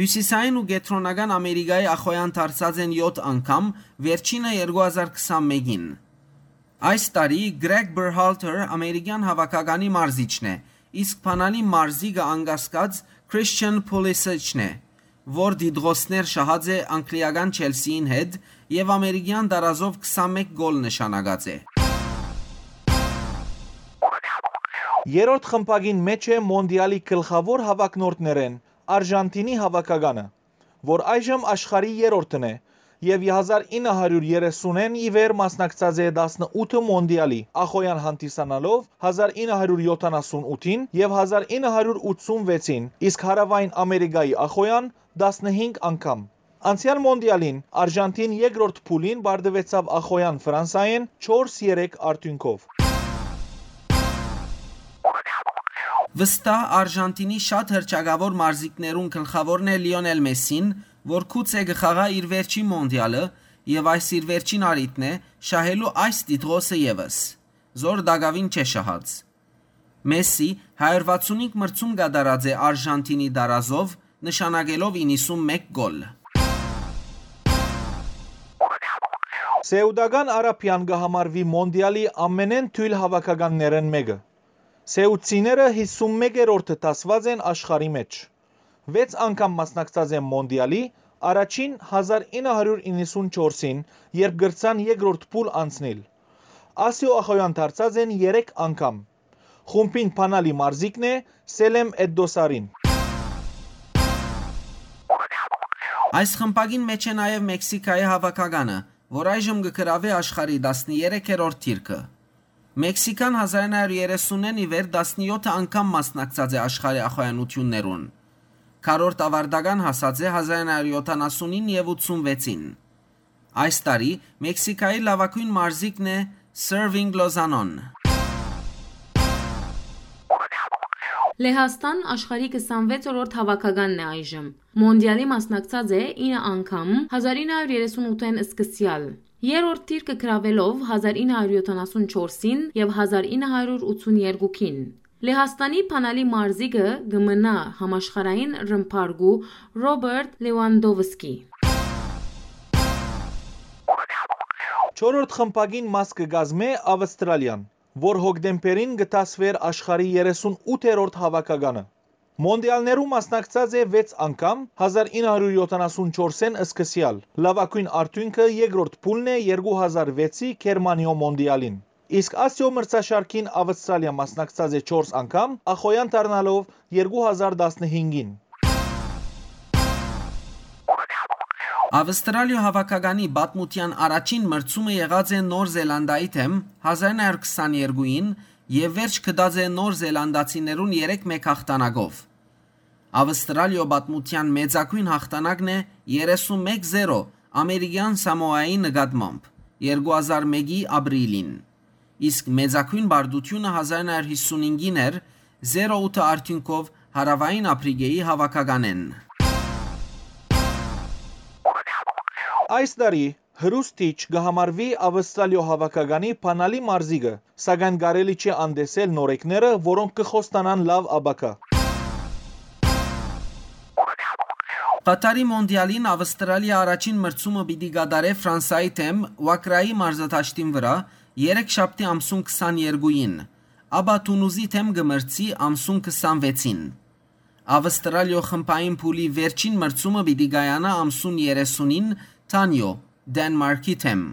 Հիւսիսային ու Կեդրոնական Ամերիկայի ախոյեան դարձած են եօթ անգամ, վերջինը երկու հազար քսանմէկին։ Այս տարի Կրեգ Բերհալթեր ամերիկեան հաւաքականի մարզիչն է, իսկ բանալի մարզիկը անկասկած Քրիսչեն Փուլիսիչն է, որ դիտողներ շահած է անգլիական Չելսիին հետ եւ ամերիկեան տարազով քսանմէկ գոլ նշանակած է։ Երրորդ խմբակին մէջ է Մոնտիալի գլխաւոր հաւաքնորդներէն Արժանթինի հաւաքականը, որ այժմ աշխարհի երրորդն է եւ հազար ինը հարիւր երեսունէն ի վեր մասնակցած է տասնութ մոնտիալի ախոյեան հանդիսանալով հազար ինը հարիւր եթանասունութին եւ հազար ինը հարիւր ութսունվեցին, իսկ Հարաւային Ամերիկայի ախոյեան տասնհինգ անգամ։ Անցեալ մոնտիալին Արժանթին երկրորդ փուլին պարտուեցաւ ախոյեան Ֆրանսայէն չորս երեք արդիւնքով։ Վստահ Արժանթինի շատ հռչակաւոր մարզիկներուն գլխաւորն է Լիոնել Մեսին, որ գուցե կը խաղայ իր վերջին մոնտիալը եւ այս իր վերջին առիթն է շահելու այս տիտղոսը եւս, զոր տակաւին չէ շահած։ Մեսի հարիւր վաթսունհինգ մրցում կատարած է Արժանթինի տարազով, նշանակելով իննսունմէկ գոլ։ Սեուտական Արաբիան կը համարուի մոնտիալի ամենէն թոյլ հաւաքականներէն մէկը։ Սեուտցիները հիսունմեկերորդը դասուած են աշխարհի մէջ։ Վեց անգամ մասնակցած են մոնտիալի, առաջին հազար ինը հարիւր իննսունչորսին, երբ կրցան երկրորդ փուլ անցնիլ։ Ասիոյ ախոյեան դարձած են երեք անգամ։ Խումբին բանալի մարզիկն է Սելեմ Էդդոսարին։ Այս խմբակին մէջ է նաեւ Մեքսիքայի հաւաքականը, որ այժմ կը գրաւէ աշխարհի տասներեքերորդ դիրքը։ Մեքսիքան հազար ինը հարիւր երեսունէն ի վեր տասնեթ անգամ մասնակցած է աշխարհի ախոյանութիւններուն։ Քառորդ աւարտական հասած է հազար ինը հարիւր եթանասունին եւ ութսունվեցին։ Այս տարի Մեքսիքայի լաւագոյն մարզիկն է Սերվինգ Լոզանոն։ Լեհաստան աշխարհի քսանվեցերորդ հաւաքականն է այժմ։ Մոնտիալի մասնակցած է ինը անգամ, հազար ինը հարիւր երեսունութէն սկսեալ։ Երրորդ դիրքը գրաւելով հազար ինը հարիւր եթանասունչորսին եւ հազար ինը հարիւր ութսուներկուին։ Լեհաստանի բանալի մարզիկը կը մնայ համաշխարհային ռմբարկու Ռոբերտ Լեուանդովսկի։ Չորրորդ խմբակին մաս կը կազմէ Ավստրալիան, որ հոկտեմբերին կը դասուէր աշխարհի երեսունութերորդ հաւաքականը։ Մոնտիալներու մասնակցած է վեց անգամ, հազար ինը հարիւր եթանասունչորսէն սկսեալ, լաւագոյն արդիւնքը երկրորդ փուլն է երկու հազար վեցի Գերմանիոյ մոնտիալին։ Իսկ Ասիոյ մրցաշարքին Ավստրալիա մասնակցած է չորս անգամ, ախոյեան դառնալով երկու հազար տասնհինգին։ Ավստրալիոյ հաւաքականի պատմութեան առաջին մրցումը եղած է Նոր Զելանդայի դէմ հազար ինը հարիւր քսաներկուին եւ վերջ գտած է նոր զելանդացիներուն երեք մէկ յաղթանակով։ Ավստրալիոյ պատմութեան մեծագոյն յաղթանակն է երեսունմէկ զերո ամերիկեան Սամոայի նկատմամբ երկու հազար մէկի ապրիլին, իսկ մեծագոյն պարտութիւնը հազար ինը հարիւր յիսունհինգին էր, զերո ութը արդիւնքով Հարաւային Ափրիկէի հաւաքականէն։ Այս տարի Հրուստիչ կը համարուի Ավստրալիոյ հաւաքականի բանալի մարզիկը, սակայն կարելի չէ անտեսել նորեկները, որոնք կը խոստանան լաւ ապագայ։ Ղաթարի մոնտիալին Ավստրալիա առաջին մրցումը պիտի կատարէ Ֆրանսայի դէմ Ուակրայի մարզադաշտին վրայ երեքշաբթի ամսուն քսաներկուին, ապա Թունուզի դէմ կը մրցի ամսուն քսանվեցին։ Ավստրալիոյ խմբային փուլի վերջին մրցումը պիտի կայանայ ամսուն երեսունին Թանիոյ, Դենմարքի դէմ։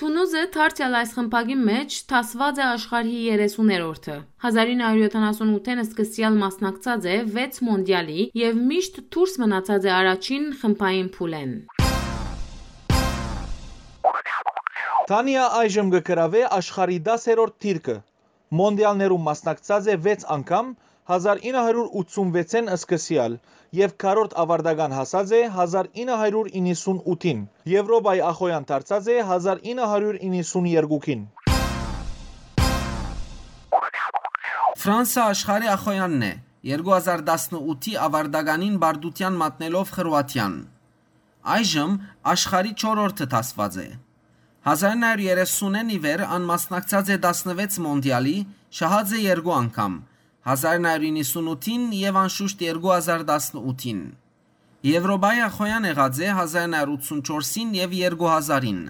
Թունուզը դարձեալ այս խմբակի մէջ դասուած է աշխարհի երեսուներորդը։ Հազար ինը հարիւր եթանասունութէն սկսեալ մասնակցած է վեց մոնտիալի եւ միշտ դուրս մնացած է առաջին խմբային փուլէն։ Թանիա այժմ կը գրաւէ աշխարհի տասերորդ դիրքը։ Մոնտիալներուն մասնակցած է վեց անգամ, հազար ինը հարիւր ութսունվեցէն սկսեալ, եւ քառորդ աւարտական հասած է հազար ինը հարիւր իննսունութին, Եւրոպայի ախոյեան դարձած է հազար ինը հարիւր իննսուներկուին։ Ֆրանսա աշխարհի ախոյանն է, երկու հազար տասնութի աւարտականին պարտութեան մատնելով Խրուաթիան։ Այժմ աշխարհի չորրորդը դասուած է։ Հազար ինը հարիւր երեսունէն ի վեր ան մասնակցած է տասնվեց մոնտիալի, շահած է երկու անգամ, հազար ինը հարիւր իննսունութին եւ անշուշտ երկու հազար տասնութին։ Եվրոպայի ախոյան եղած է հազար ինը հարիւր ութսունչորսին եւ երկու հազարին։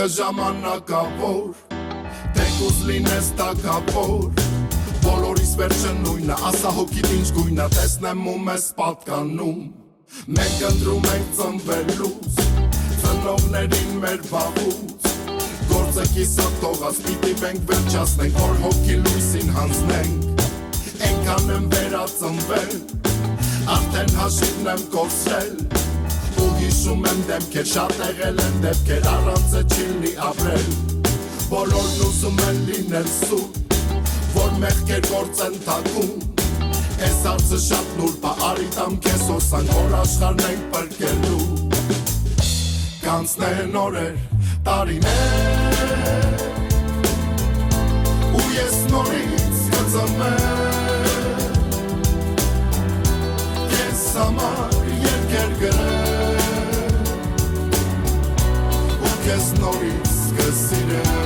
Ժամանակաւոր, թեկուզ լինես թագաւոր, բոլորիս վերջը նոյնը, ասա հոգիդ ինչ գոյնը, տեսնեմ ու մեզ պատկանում։ Մենք ընտրում ենք ծնվելուց, ծնողներին մեր վաղուց, գործը կիսատ թողած, պիտի մենք վերջացնենք, որ հոգի լույսին հանձնենք։ Այնքան եմ վերածնվել, արդեն հաշիվն եմ կորցրել, ու հիշում եմ դեմքեր, շատ եղել են դեպքեր, առանց է չի լինի ապրել։ Բոլորն ուզում են լինել սուր, որ մեղքեր գործեն թաքուն։ Այս հարցը շատ նուրբ է, արի տամ քեզ հոսանք, որ աշխարհն ենք փրկելու։ Կանցնեն օրեր, տարիներ, ու ես նորից կծնվեմ, քեզ համար երկեր գրեմ, ու քեզ նորից կսիրեմ։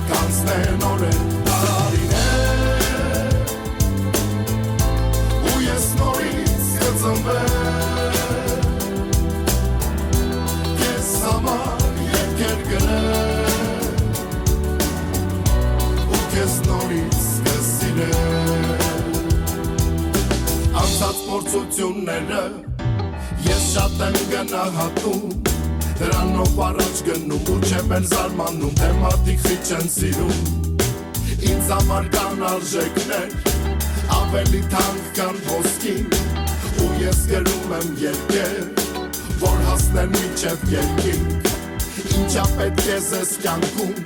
Կանցնեն օրեր, տարիներ, ու ես նորից կծնվեմ, քեզ համար երկեր գրեմ, ու քեզ նորից կսիրեմ։ Անցած փորձությունները ես շատ եմ գնահատում, դրանով առաջ գնում ու չեմ էլ զարմանում, թե մարդիկ խիչ են սիրում։ Ինձ համար կան արժեքներ ավելի թանկ, քան ոսկին, ու ես գրում եմ երկեր, որ հասնեն մինչև երկինք։ Ինչա պետք է զես կյանքում,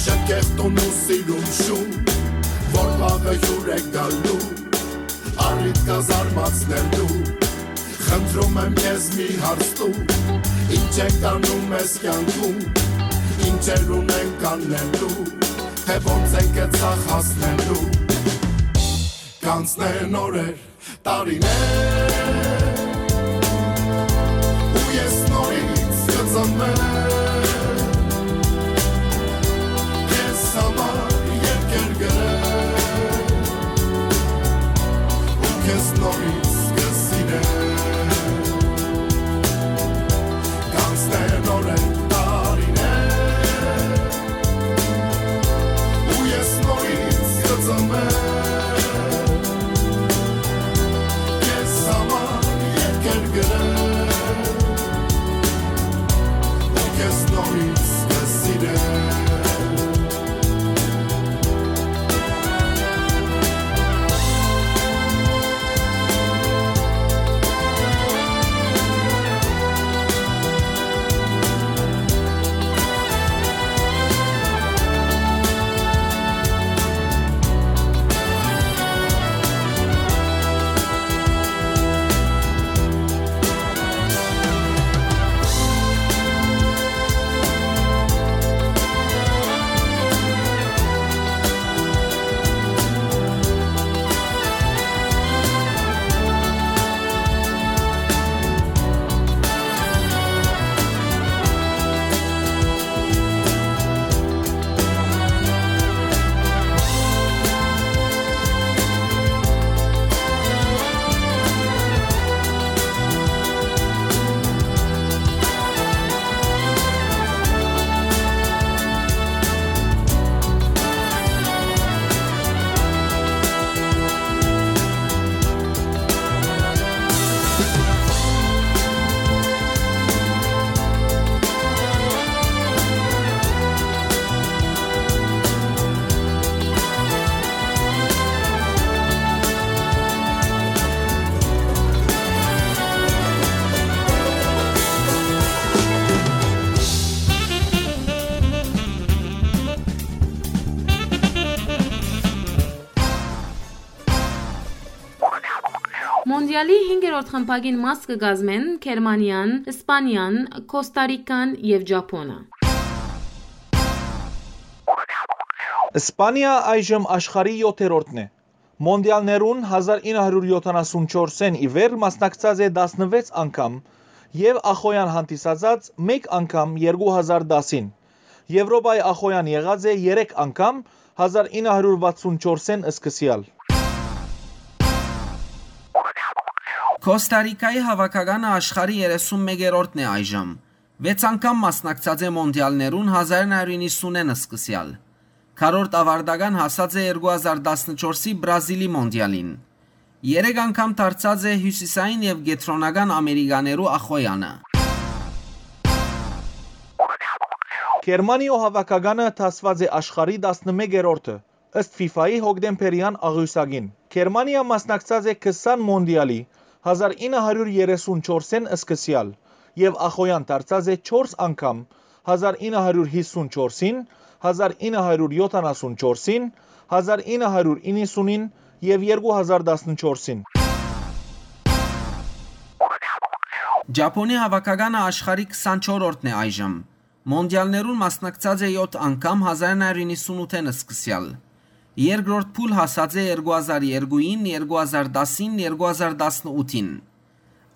շքեղտուն ու սիրուն շուն, որ վաղը հյուր է գալու, առիթ կա զարմացնելու։ Խնդրում եմ քեզ, մի հարց տու, ինչ ենք անում այս կյանքում, ինչեր ունենք անելու, թե ոնց ենք այդ սաղ հասնելու։ Կանցնեն օրեր, տարիներ, ու ես նորից կծնվեմ, քեզ համար երկեր գրեմ, ու քեզ նորից կսիրեմ։ Կանցնեն օրեր, տարիներ, ու ես նորից կծնվեմ, քեզ համար երկեր գրեմ, ու քեզ նորից կսիրեմ։ Մոնդիալի հինգերորդ խմբակին մաս կը կազմեն Գերմանիան, Իսպանիան, Կոստա Ռիկան եւ Ճապոնը։ Իսպանիա այժմ աշխարհի յոթերորդն է։ Մոնդիալներուն հազար ինը հարյուր յոթանասուն չորսէն ի վեր մասնակցած է տասնվեց անգամ եւ ախոյեան հանդիսացած մէկ անգամ երկու հազար տասին։ Եւրոպայի ախոյեան եղած է երեք անգամ, հազար ինը հարյուր վաթսուն չորսէն սկսեալ։ Կոստա Ռիկայի հաւաքականը աշխարհի երեսուն մեկերորդն է այժմ։ Վեց անգամ մասնակցած է մոնդիալներուն հազար ինը հարիւր իննսունէն սկսեալ։ Քառորդ աւարտական հասած է երկու հազար տասնչորսի Բրազիլի մոնդիալին։ Երեք անգամ դարձած է հիւսիսային եւ կեդրոնական Ամերիկաներու ախոյանը։ Գերմանիոյ հաւաքականը դասուած է աշխարհի տասնմեկերորդը, ըստ ֆիֆայի հոկտեմբերեան աղիւսակին։ Գերմանիա մասնակցած է քսան մոնդիալի, հազար ինը հարիւր երեսուն չորսէն սկսեալ, եւ ախոյան դարձած է չորս անգամ, հազար ինը հարիւր հիսուն չորսին, հազար ինը հարիւր յոթանասուն չորսին, հազար ինը հարիւր իննսունին եւ երկու հազար տասնչորսին։ Ճապոնի հաւաքականը աշխարհի քսանչորրորդն է այժմ։ Մոնդիալներուն մասնակցած է յոթ անգամ հազար ինը հարիւր իննսունութէն սկսեալ։ Երկրորդ փուլ հասած է երկու հազար երկուին, երկու հազար տասին, երկու հազար տասնութին։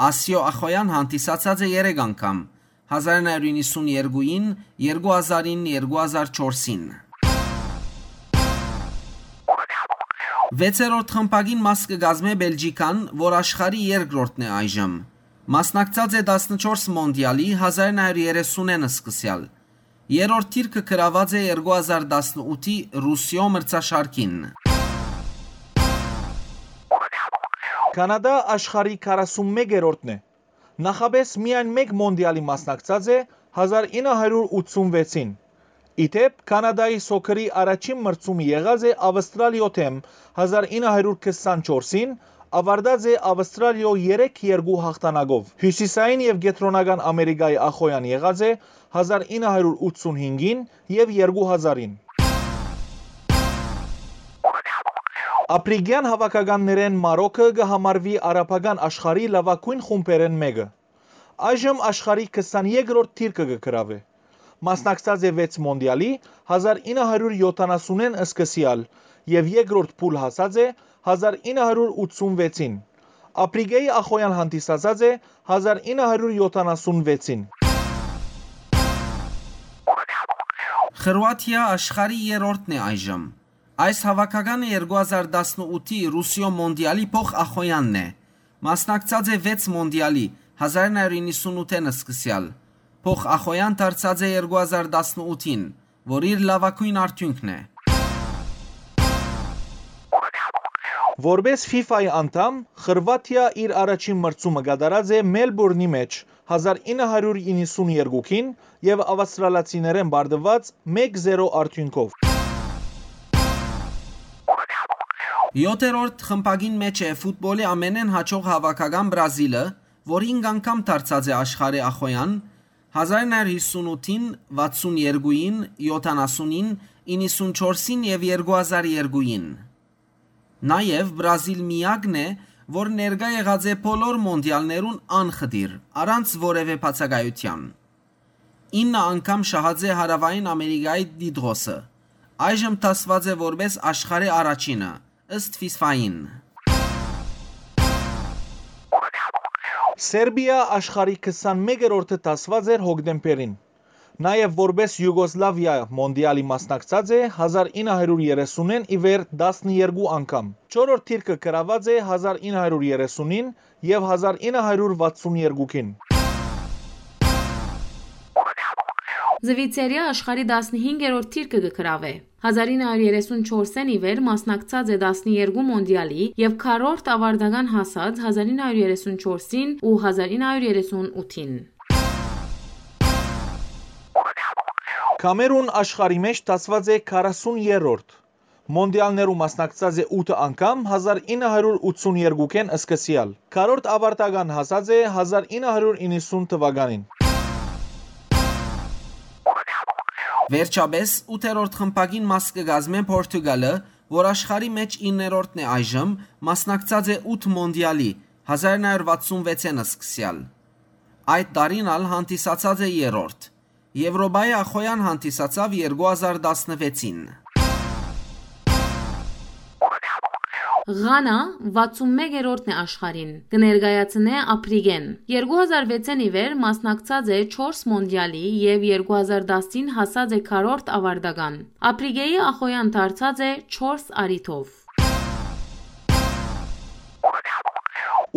Ասիոյ ախոյան հանդիսացած է երեք անգամ, հազար ինը հարիւր իննսուն երկուին, երկու հազարին, երկու հազար չորսին։ Վեցերորդ խմբակին մաս կը կազմէ Բելգիքան, որ աշխարհի երկրորդն է այժմ։ Մասնակցած է տասնչորս մոնդիալի, հազար ինը հարիւր երեսունէն սկսեալ։ Երրորդ դիրքը գրաւած է երկու հազար տասնութի Ռուսիոյ մրցաշարքին։ Կանադա աշխարհի քառասունմեկերորդն է։ Նախապէս միայն մէկ մոնդիալի մասնակցած է, հազար ինը հարիւր ութսունվեցին։ Ի դէպ, Կանադայի սոքերի առաջին մրցումը եղած է Ավստրալիոյ դէմ, հազար ինը հարիւր քսանչորսին, աւարտած է Ավստրալիոյ երեք երկու հաղթանակով։ Հիւսիսային եւ կեդրոնական Ամերիկայի ախոյան եղած է հազար ինը հարիւր ութսունհինգին եւ երկու հազարին։ Ափրիկեան հաւաքականներէն Մարոքը կը համարուի արաբական աշխարհի լաւագոյն խումբերէն մէկը։ Այժմ աշխարհի քսաներկրորդ դիրքը կը գրաւէ։ Մասնակցած է վեց մոնդիալի, հազար ինը հարիւր յոթանասունէն սկսեալ, եւ երկրորդ փուլ հասած է հազար ինը հարիւր ութսունվեցին։ Ափրիկեի ախոյան հանդիսացած է հազար ինը հարիւր յոթանասունվեցին։ Խրուաթիա աշխարհի երրորդն է այժմ։ Այս հաւաքականը երկու հազար տասնութի Ռուսիոյ մոնդիալի փոխ ախոյանն է։ Մասնակցած է վեց մոնդիալի, հազար ինը հարիւր իննսունութէն սկսեալ։ Փոխ ախոյան դարձած է երկու հազար տասնութին, որ իր լաւագոյն արդիւնքն է։ Որպէս ֆիֆայի անդամ, Խրուաթիա իր առաջին մրցումը կատարած է Մելբուրնի մէջ, հազար ինը հարիւր իննսուն երկուին, եւ ավստրալացիներէն պարտուած մէկ զերո արդիւնքով։ Յոթերորդ խմբակին մէջ է ֆուտբոլի ամենէն յաջող հաւաքական Բրազիլը, որ հինգ անգամ դարձած է աշխարհի ախոյան, հազար ինը հարիւր հիսունութին, վաթսուն երկուին, յոթանասունին, իննսուն չորսին եւ երկու հազար երկուին։ Նաեւ Բրազիլ միակն է, որ ներկայ եղած է բոլոր մոնդիալներուն անխտիր, առանց որեւէ բացակայութեան։ Ինը անգամ շահած է Հարաւային Ամերիկայի տիտղոսը։ Այժմ դասուած է որպէս աշխարհի առաջինը, ըստ ֆիֆային։ Սերբիա աշխարհի քսանմեկերորդը դասուած էր հոկտեմբերին։ Նաեւ որպէս Յուգոսլավիա մոնդիալի մասնակցած է հազար ինը հարիւր երեսունէն ի վեր տասներկու անգամ։ Չորրորդ դիրքը գրաւած է հազար ինը հարիւր երեսունին եւ հազար ինը հարիւր վաթսուն երկուին։ Զուիցերիա աշխարհի տասնհինգերորդ դիրքը կը գրաւէ։ Հազար ինը հարիւր երեսուն չորսէն ի վեր մասնակցած է տասներկու մոնդիալի եւ քառորդ աւարտական հասած հազար ինը հարիւր երեսուն չորսին ու հազար ինը հարիւր երեսուն ութին։ Կամերուն աշխարհի մէջ դասուած է քառասուն երրորդ։ Մոնդիալներու մասնակցած է ութ անգամ հազար ինը հարիւր ութսուն երկուին սկսեալ։ Քառորդ աւարտական հասած է հազար ինը հարիւր իննսուն թուականին։ Վերջապէս, ութերորդ խմբակին մաս կը կազմէ Պորտուգալը, որ աշխարհի մէջ իններորդն է այժմ, մասնակցած է ութ մոնդիալի, հազար ինը հարիւր վաթսուն վեցէն սկսեալ։ Այդ տարին ալ հանդիսացած է երրորդ։ Եվրոպայի ախոյան հանդիսացաւ երկու հազար տասնվեցին։ Ղանա վաթսուն մեկերորդն է աշխարհին, կը ներկայացնէ Ափրիկեն։ Երկու հազար վեցէն ի վեր մասնակցած է չորս մոնդիալի եւ երկու հազար տասին հասած է քառորդ աւարտական։ Ափրիկեի ախոյան դարձած է չորս առիթով։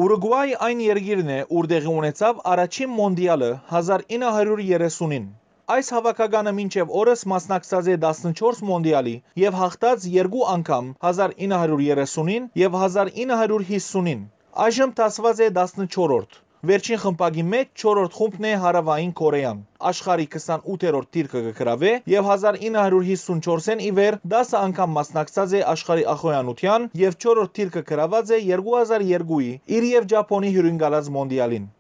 Ուրուկուայ այն երկիրն է, ուր տեղի ունեցաւ առաջին մոնդիալը հազար ինը հարիւր երեսունին։ Այս հաւաքականը մինչեւ օրս մասնակցած է տասնչորս մոնդիալի եւ հաղթած երկու անգամ՝ հազար ինը հարիւր երեսունին եւ հազար ինը հարիւր յիսունին։ Այժմ դասուած է տասնչորրորդ։ Վերջին խմբակի մէջ չորրորդ խումբն է Հարաւային Կորեան։ Աշխարհի քսանութերորդ դիրքը կը գրաւէ եւ հազար ինը հարիւր յիսունչորսէն ի վեր տասը անգամ մասնակցած է աշխարհի ախոյանութեան եւ չորրորդ դիրքը գրաւած է երկու հազար երկուի իր եւ Ճապոնի հիւրընկալած մոնդիալին։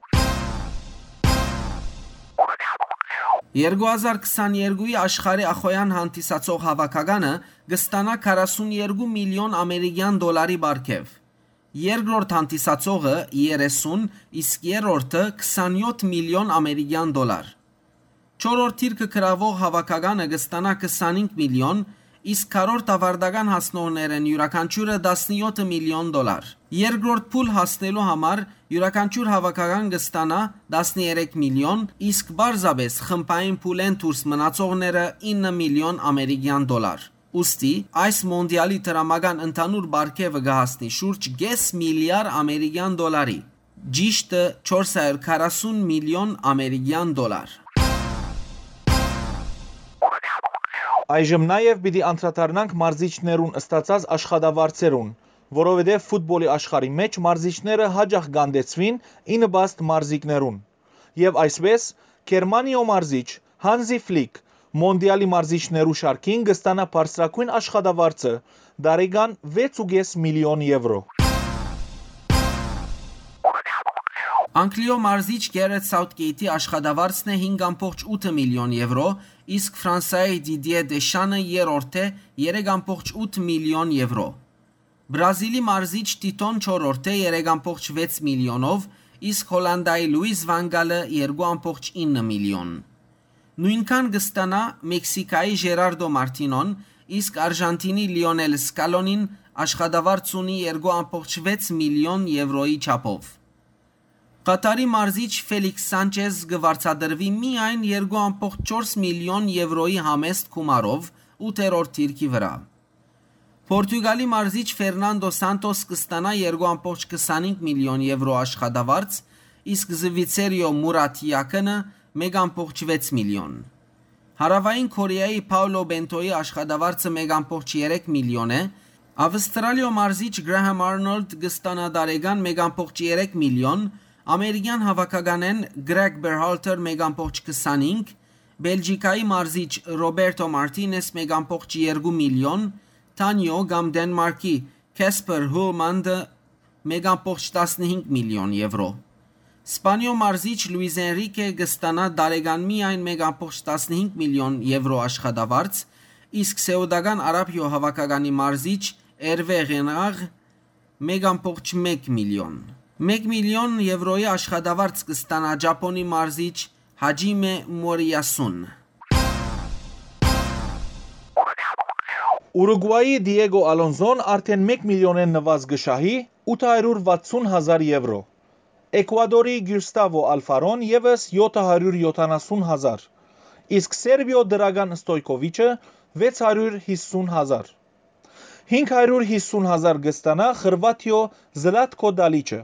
Երկու հազար քսաներկուի աշխարհի ախոյան հանդիսացող հաւաքականը կը ստանայ քառասուն երկու միլիոն ամերիկեան դոլարի պարգեւ։ Երկրորդ հանդիսացողը՝ երեսուն, իսկ երրորդը՝ քսանյոթ միլիոն ամերիկեան դոլար։ Չորրորդ դիրքը գրաւող հաւաքականը կը ստանայ քսանհինգ միլիոն, իսկ քառորդ աւարտական հասնողներէն իւրաքանչիւրը՝ տասնյոթ միլիոն դոլար։ Երկրորդ փուլ հասնելու համար իւրաքանչիւր հաւաքական կը ստանայ տասներեք միլիոն, իսկ պարզապէս խմբային փուլէն դուրս մնացողները՝ ինը միլիոն ամերիկեան դոլար։ Ուստի այս մոնդիալի դրամական ընդհանուր պարգեւը կը հասնի շուրջ կէս միլիար ամերիկեան դոլարի, ճիշդը՝ չորս հարիւր քառասուն միլիոն ամերիկեան դոլար։ Այժմ նաեւ պիտի անդրադառնանք մարզիչներուն ստացած աշխատավարձերուն, որովհետեւ ֆուտբոլի աշխարհի մէջ մարզիչները յաճախ կ'անդեցուին ի նպաստ մարզիկներուն։ Եւ այսպէս, Գերմանիոյ մարզիչ Հանզի Ֆլիք մոնդիալի մարզիչներու շարքին կը ստանայ բարձրագոյն աշխատավարձը՝ տարեկան վեց ու կէս միլիոն եվրո։ Անգլիոյ մարզիչ Գերեթ Սաութկեյթի աշխատավարձն է հինգ ամբողջ ութ միլիոն եվրո, իսկ Ֆրանսայի Դիդիե Դեշանը երրորդ է՝ երեք ամբողջ ութ միլիոն եվրո։ Բրազիլի մարզիչ Տիտոն չորրորդ է՝ երեք ամբողջ վեց միլիոնով, իսկ Հոլանդայի Լուիս Վան Գալը՝ երկու ամբողջ ինը միլիոն։ Նոյնքան կը ստանայ Մեքսիքայի Ժերարդո Մարտինոն, իսկ Արժանթինի Լիոնել Սկալոնին աշխատավարձ ունի երկու ամբողջ վեց միլիոն եվրոյի չափով։ Ղաթարի մարզիչ Ֆելիքս Սանչեզ կը վարձատրուի միայն երկու ամբողջ չորս միլիոն եվրոյի համեստ գումարով ութերորդ դիրքի վրայ։ Պորտուգալի մարզիչ Ֆերնանդո Սանտոս կը ստանայ երկու ամբողջ քսանհինգ միլիոն եվրո աշխատավարձ, իսկ Զվիցերիոյ Մուրատ Յակինը՝ մէկ ամբողջ վեց միլիոն։ Հարաւային Քորեայի Փաուլո Բենթոյի աշխատավարձը մէկ ամբողջ երեք միլիոն է, Ավստրալիոյ մարզիչ Գրահեմ Արնոլդ կը ստանայ տարեկան մէկ ամբողջ երեք միլիոն, ամերիկեան հաւաքականէն Գրեգ Բերհալթեր՝ մէկ ամբողջ քսանհինգ, Բելգիքայի մարզիչ Ռոբերտո Մարտինես՝ մէկ ամբողջ երկու միլիոն, Թանիո կամ Դենմարկի Քեսպեր Հուլմանդը՝ մէկ ամբողջ տասնհինգ միլիոն եվրո։ Սպանիոյ մարզիչ Լուիս Էնրիկե կը ստանայ տարեկան միայն մէկ ամբողջ տասնհինգ միլիոն եվրո աշխատավարձ, իսկ Սէուտական Արաբիոյ հաւաքականի մարզիչ Էրվե Ղենաղ՝ մէկ ամբողջ մէկ միլիոն։ Մէկ միլիոն եվրոյի աշխատավարձ կը ստանայ Ճապոնի մարզիչ Հաջիմէ Մորիասուն։ Ուրուկուայի Դիեգո Ալոնզոն արդէն մէկ միլիոնէն նուազ կը շահի՝ ութ հարիւր վաթսուն հազար եվրո։ Էկուադորի Գիուստավո Ալֆարոն եւս՝ յոթ հարիւր յոթանասուն հազար, իսկ Սերբիոյ Դրագան Ստոյքովիչը՝ վեց հարիւր յիսուն հազար։ Հինգ հարիւր յիսուն հազար կը ստանայ Խրուաթիոյ Զլատքո Դալիչը,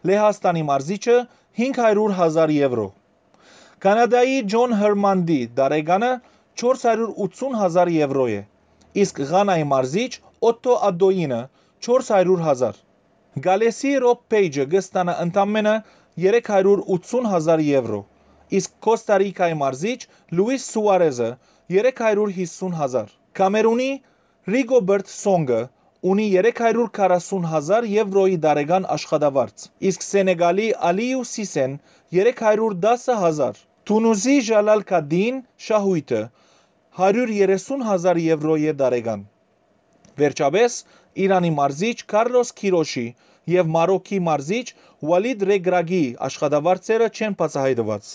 Լեհաստանի մարզիչը՝ հինգ հարիւր հազար եվրո։ Կանադայի Ջոն Հերմանտի տարեկանը չորս հարիւր ութսուն հազար եվրո է, իսկ Ղանայի մարզիչ Օթթո Ադոյինը՝ չորս հարիւր հազար։ Գալէսի Ռոբ Փէյջը կը ստանայ ընդամէնը երեք հարիւր ութսուն հազար եվրո, իսկ Քոստա Ռիքայի մարզիչ Լուիս Սուարեզը՝ երեք հարիւր յիսուն հազար։ Կամերունի Ռիգոբերտ Սոնգը ունի երեք հարիւր քառասուն հազար եվրոյի տարեկան աշխատավարձ, իսկ Սենեգալի Ալիու Սիսեն՝ երեք հարիւր տասը հազար։ Թունուզի Ժալալ Քադին շահոյթը՝ հարիւր երեսուն հազար եվրոյ է տարեկան։ Վերջապէս, Իրանի մարզիչ Քարլոս Քիրոշի եւ Մարոքի մարզիչ Ուալիդ Ռեգրագի աշխատավարձերը չեն բացայայտուած։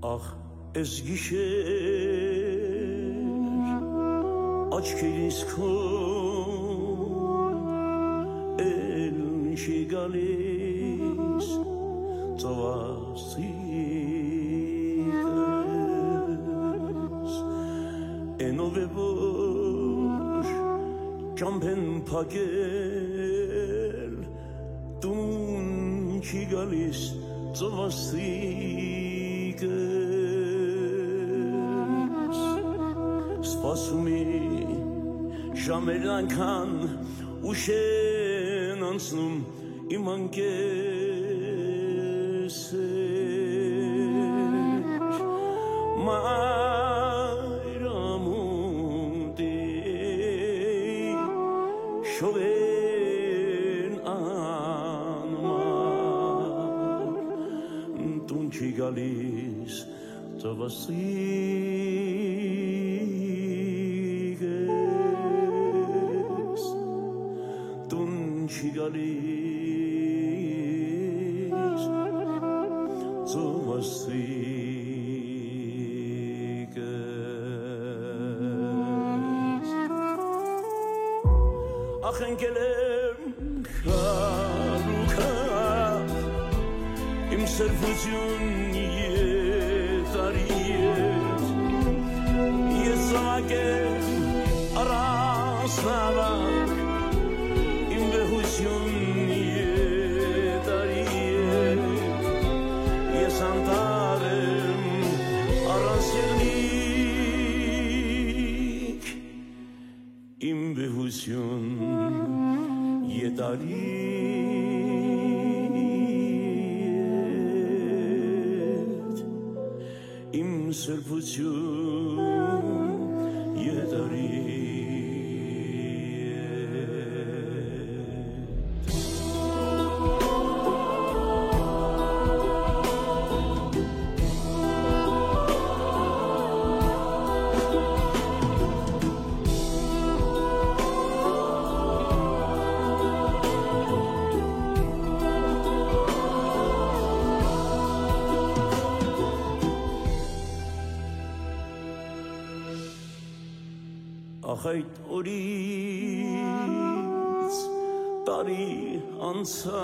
Ախ, էս գիշեր աչքերիս քո էլ չի գալիս ծովասիկս, էնով է որ ճամբեն փակել տուն չի գալիս ծովասիկս։ Սպասումի ժամերն անկան ուշ են անցնում իմ անկեսեր, մայր ամուտի շողերն անմար տուն չի գալիս ծովասիկս, տուն չի գալիս ծովասիկս։ Ախ, ընկել եմ քարուքա, իմ սրբություն եթարի հետ, ես զաւակ եմ առանց նավակ, իմ վեհություն եթարի հետ, ես անտառ եմ առանց եղնիկ, իմ վեհություն եթարի հետ, իմ սրբություն եթարի հետ։ Ախ, այդ օրից տարի անցաւ,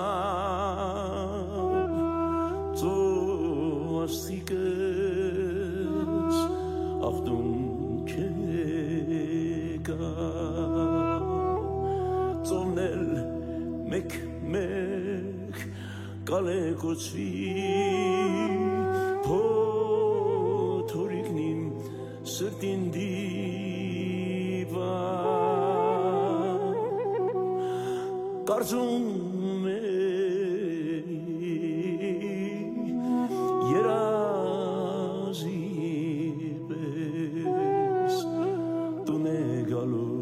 ծովասիկս ախտուն չեկա, ծովն էլ մեկ-մեկ կալեկուցուի փոթորիկն իմ սրտին դիպա, կարծում է երազի պես տուն է գալու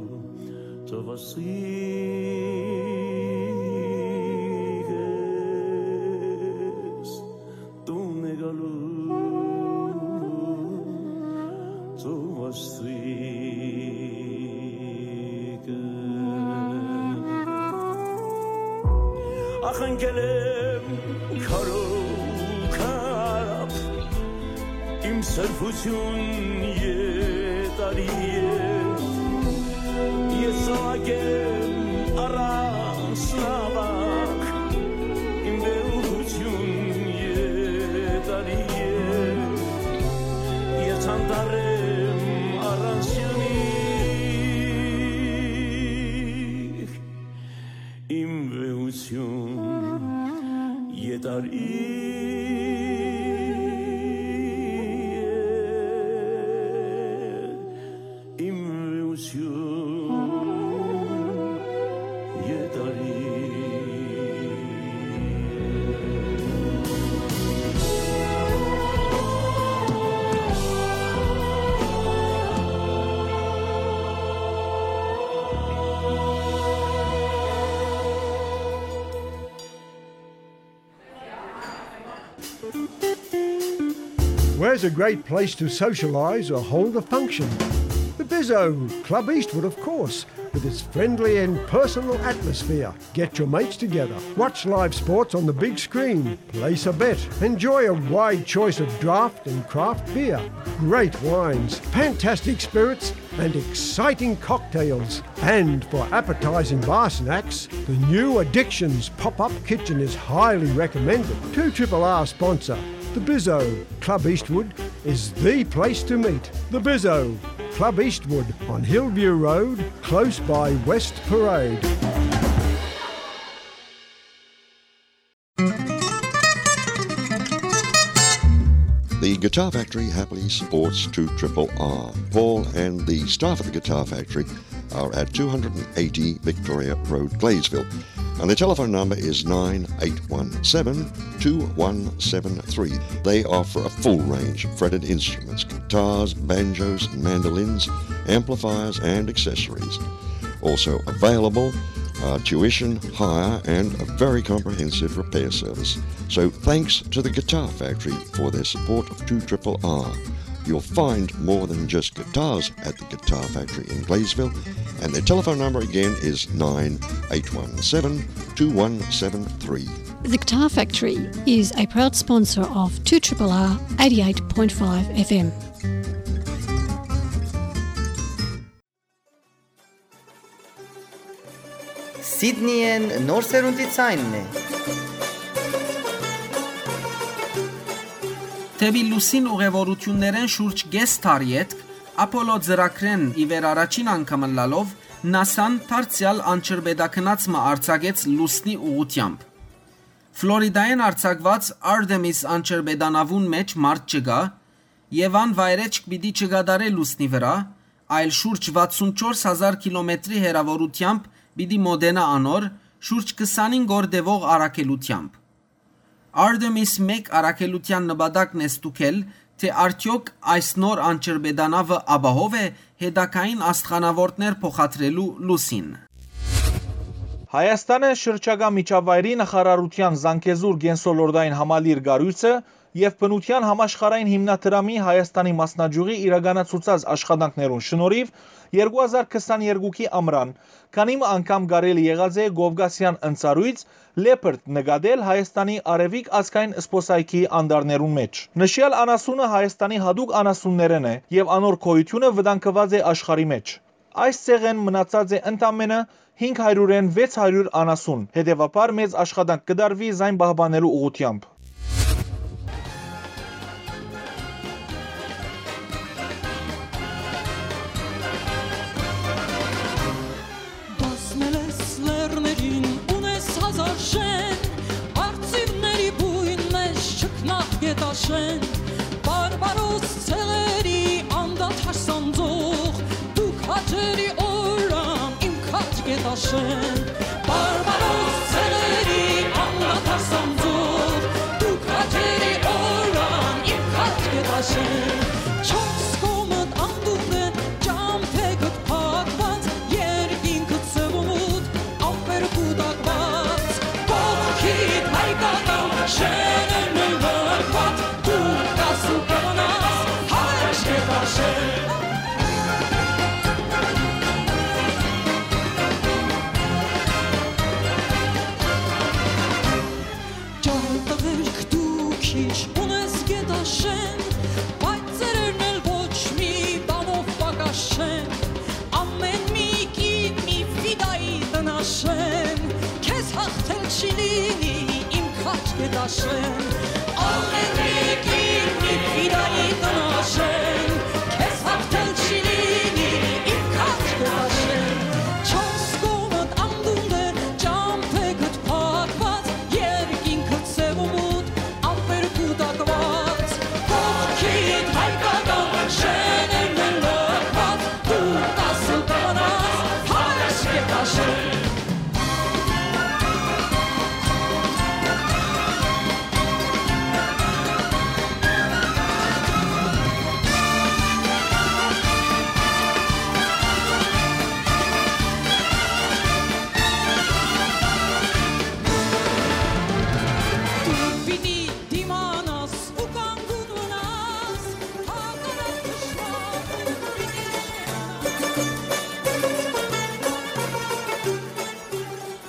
ծովասիկս, տուն է գալու ծովասիկս։ Ախ, ընկել եմ քարով քարապ, իմ սրբություն եթարի հետ, ես զաւակ եմ առանց նավակ, իմ վեհություն եթարի հետ, ես անտառ եմ առանց եղնիկ, իմ վեհություն եթարի հետ, իմ վեհություն եթարի հետ։ Where's a great place to socialize or hold a function? The Bizzo, Club Eastwood, of course, with its friendly and personal atmosphere. Get your mates together, watch live sports on the big screen, place a bet, enjoy a wide choice of draft and craft beer, great wines, fantastic spirits, and exciting cocktails. And for appetizing bar snacks, the new Addictions pop-up kitchen is highly recommended. Two Triple R sponsor, the Bizzo, Club Eastwood, is the place to meet. The Bizzo, Club Eastwood on Hillview Road, close by West Parade. The Guitar Factory happily supports two triple R. Paul and the staff at the Guitar Factory are at two hundred and eighty Victoria Road, Gladesville. And the telephone number is nine eight one seven, two one seven three. They offer a full range of fretted instruments, guitars, banjos, mandolins, amplifiers, and accessories. Also available are tuition, hire, and a very comprehensive repair service. So thanks to the Guitar Factory for their support of two triple R. You'll find more than just guitars at the Guitar Factory in Gladesville, and their telephone number again is nine eight one seven, two one seven three. The Guitar Factory is a proud sponsor of two triple R eighty-eight point five F M. Սիդնիեն նոր սերունդի ցայնն է։ Դէպի լուսին ուղեւորութիւններէն շուրջ կէս դար ետք, Ափոլո ծրագրէն ի վեր առաջին անգամ ըլլալով, նասան դարձեալ անջրպետագնաց մը արձակեց լուսնի ուղղութեամբ։ Ֆլորիդայէն արձակուած Artemis անջրպետանաւուն մէջ մարդ չկայ, եւ ան վայրէջք պիտի չկատարէ լուսնի վրայ, այլ շուրջ վաթսուն չորս հազար կիլոմետրի հեռաւորութեամբ պիտի մօտենայ անոր, շուրջ քսանհինգ օր տեւող առաքելութեամբ։ Artemis մէկ առաքելութեան նպատակն է ստուգել, թէ արդեօք այս նոր անջրպետանաւը ապահով է հետագային աստղանաւորդներ փոխադրելու լուսին։ Հայաստանը շրջակայ միջավայրի նախարարութեան Զանգեզուր կենսոլորտային համալիր կառոյցը եւ բնութեան համաշխարհային հիմնադրամի Հայաստանի մասնաճիւղի իրականացուցած աշխատանքներուն շնորհիւ երկու հազար քսաներկուքի ամրան քանի մը անգամ կարելի եղած է կովկասեան ընծառոյց Leopard նկատել Հայաստանի արեւիկ ազգային զբօսայգիի անտառներուն մէջ։ Նշեալ անասունը Հայաստանի յատուկ անասուններէն է եւ անոր գոյութիւնը վտանգուած է աշխարհի մէջ։ Այս ցեղէն մնացած է ընդամէնը հինգ հարիւրէն վեց հարիւր անասուն, հետեւաբար մեծ աշխատանք կը տարուի զայն պահպանելու ուղղութեամբ։ Բազմել ես լեռներին, ունես հազար շեն, արծիվների բույն մէջ չքնաղ գետաշեն, բարբարոս ցեղերի անդադար սանձող, դուք հաճելի օրրան իմ քաջ գետաշեն, բարբարոս ցեղերի անդադար սանձող, դուք հաճելի օրրան իմ քաջ գետաշեն, չորս կողմդ անդունդ է, ճամբեգդ փակված, երկինքդ սեւ ու մութ, ամպեր կուտակված, կողքիդ հայկական շէնն է լքված, դու կաս ու կմնաս հայրս կտաշեն։ Ճարտղերք դու քիչ ունես գետաշեն, բայց ծերերն էլ ոչ մի բանով պակաս չեն։ Ամէն մի կին մի ֆիդայի տնաշեն, քեզ հաղթել չի լինի իմ քաջ գետաշեն։ Ամէն մի կին մի ֆիդայի տնաշեն, քեզ հաղթել չի լինի իմ քաջ գետաշեն։ Չորս կողմդ անդունդ է, ճամբեգդ փակված, երկինքդ սեւ ու մութ, ամպեր կուտակված, կողքիդ հայկական շէնն է լքված, դու կաս ու կմնաս հայրս գետաշեն։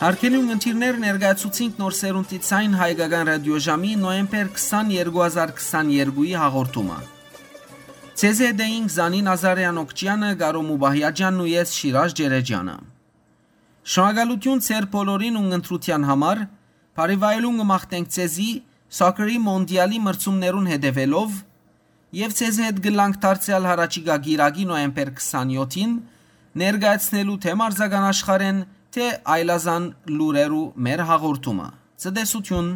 Հարգելի ունգընտիրներ, ներկայացուցինք Նոր Սերունդի Ձայն հայկական ռադիոժամի նոյեմբեր քսանեքուի հազար քսաներկուի հաղորդումը։ Ձեզի հետ էինք Զանին Ազարեան Օքճեանը, Կարո Մուբահիաջանն ու ես Շիրաժ Ջերեջյանը։ Շնորհակալութիւն ձեր բոլորին ունգընտրութեան համար, բարի վայելուն կը մաղթենք ձեզի սոքերի մոնտիալի մրցումներուն հետեւելով, եւ ձեզի հետ կ'ըլլանք դարձեալ յառաջիկայ կիրակի նոյեմբեր քսանեքին, ներկայացնելու թէ մարզական աշխարհէն, թէ այլազան լուրերու մեր հաղորդումը։ Ցտեսութիւն։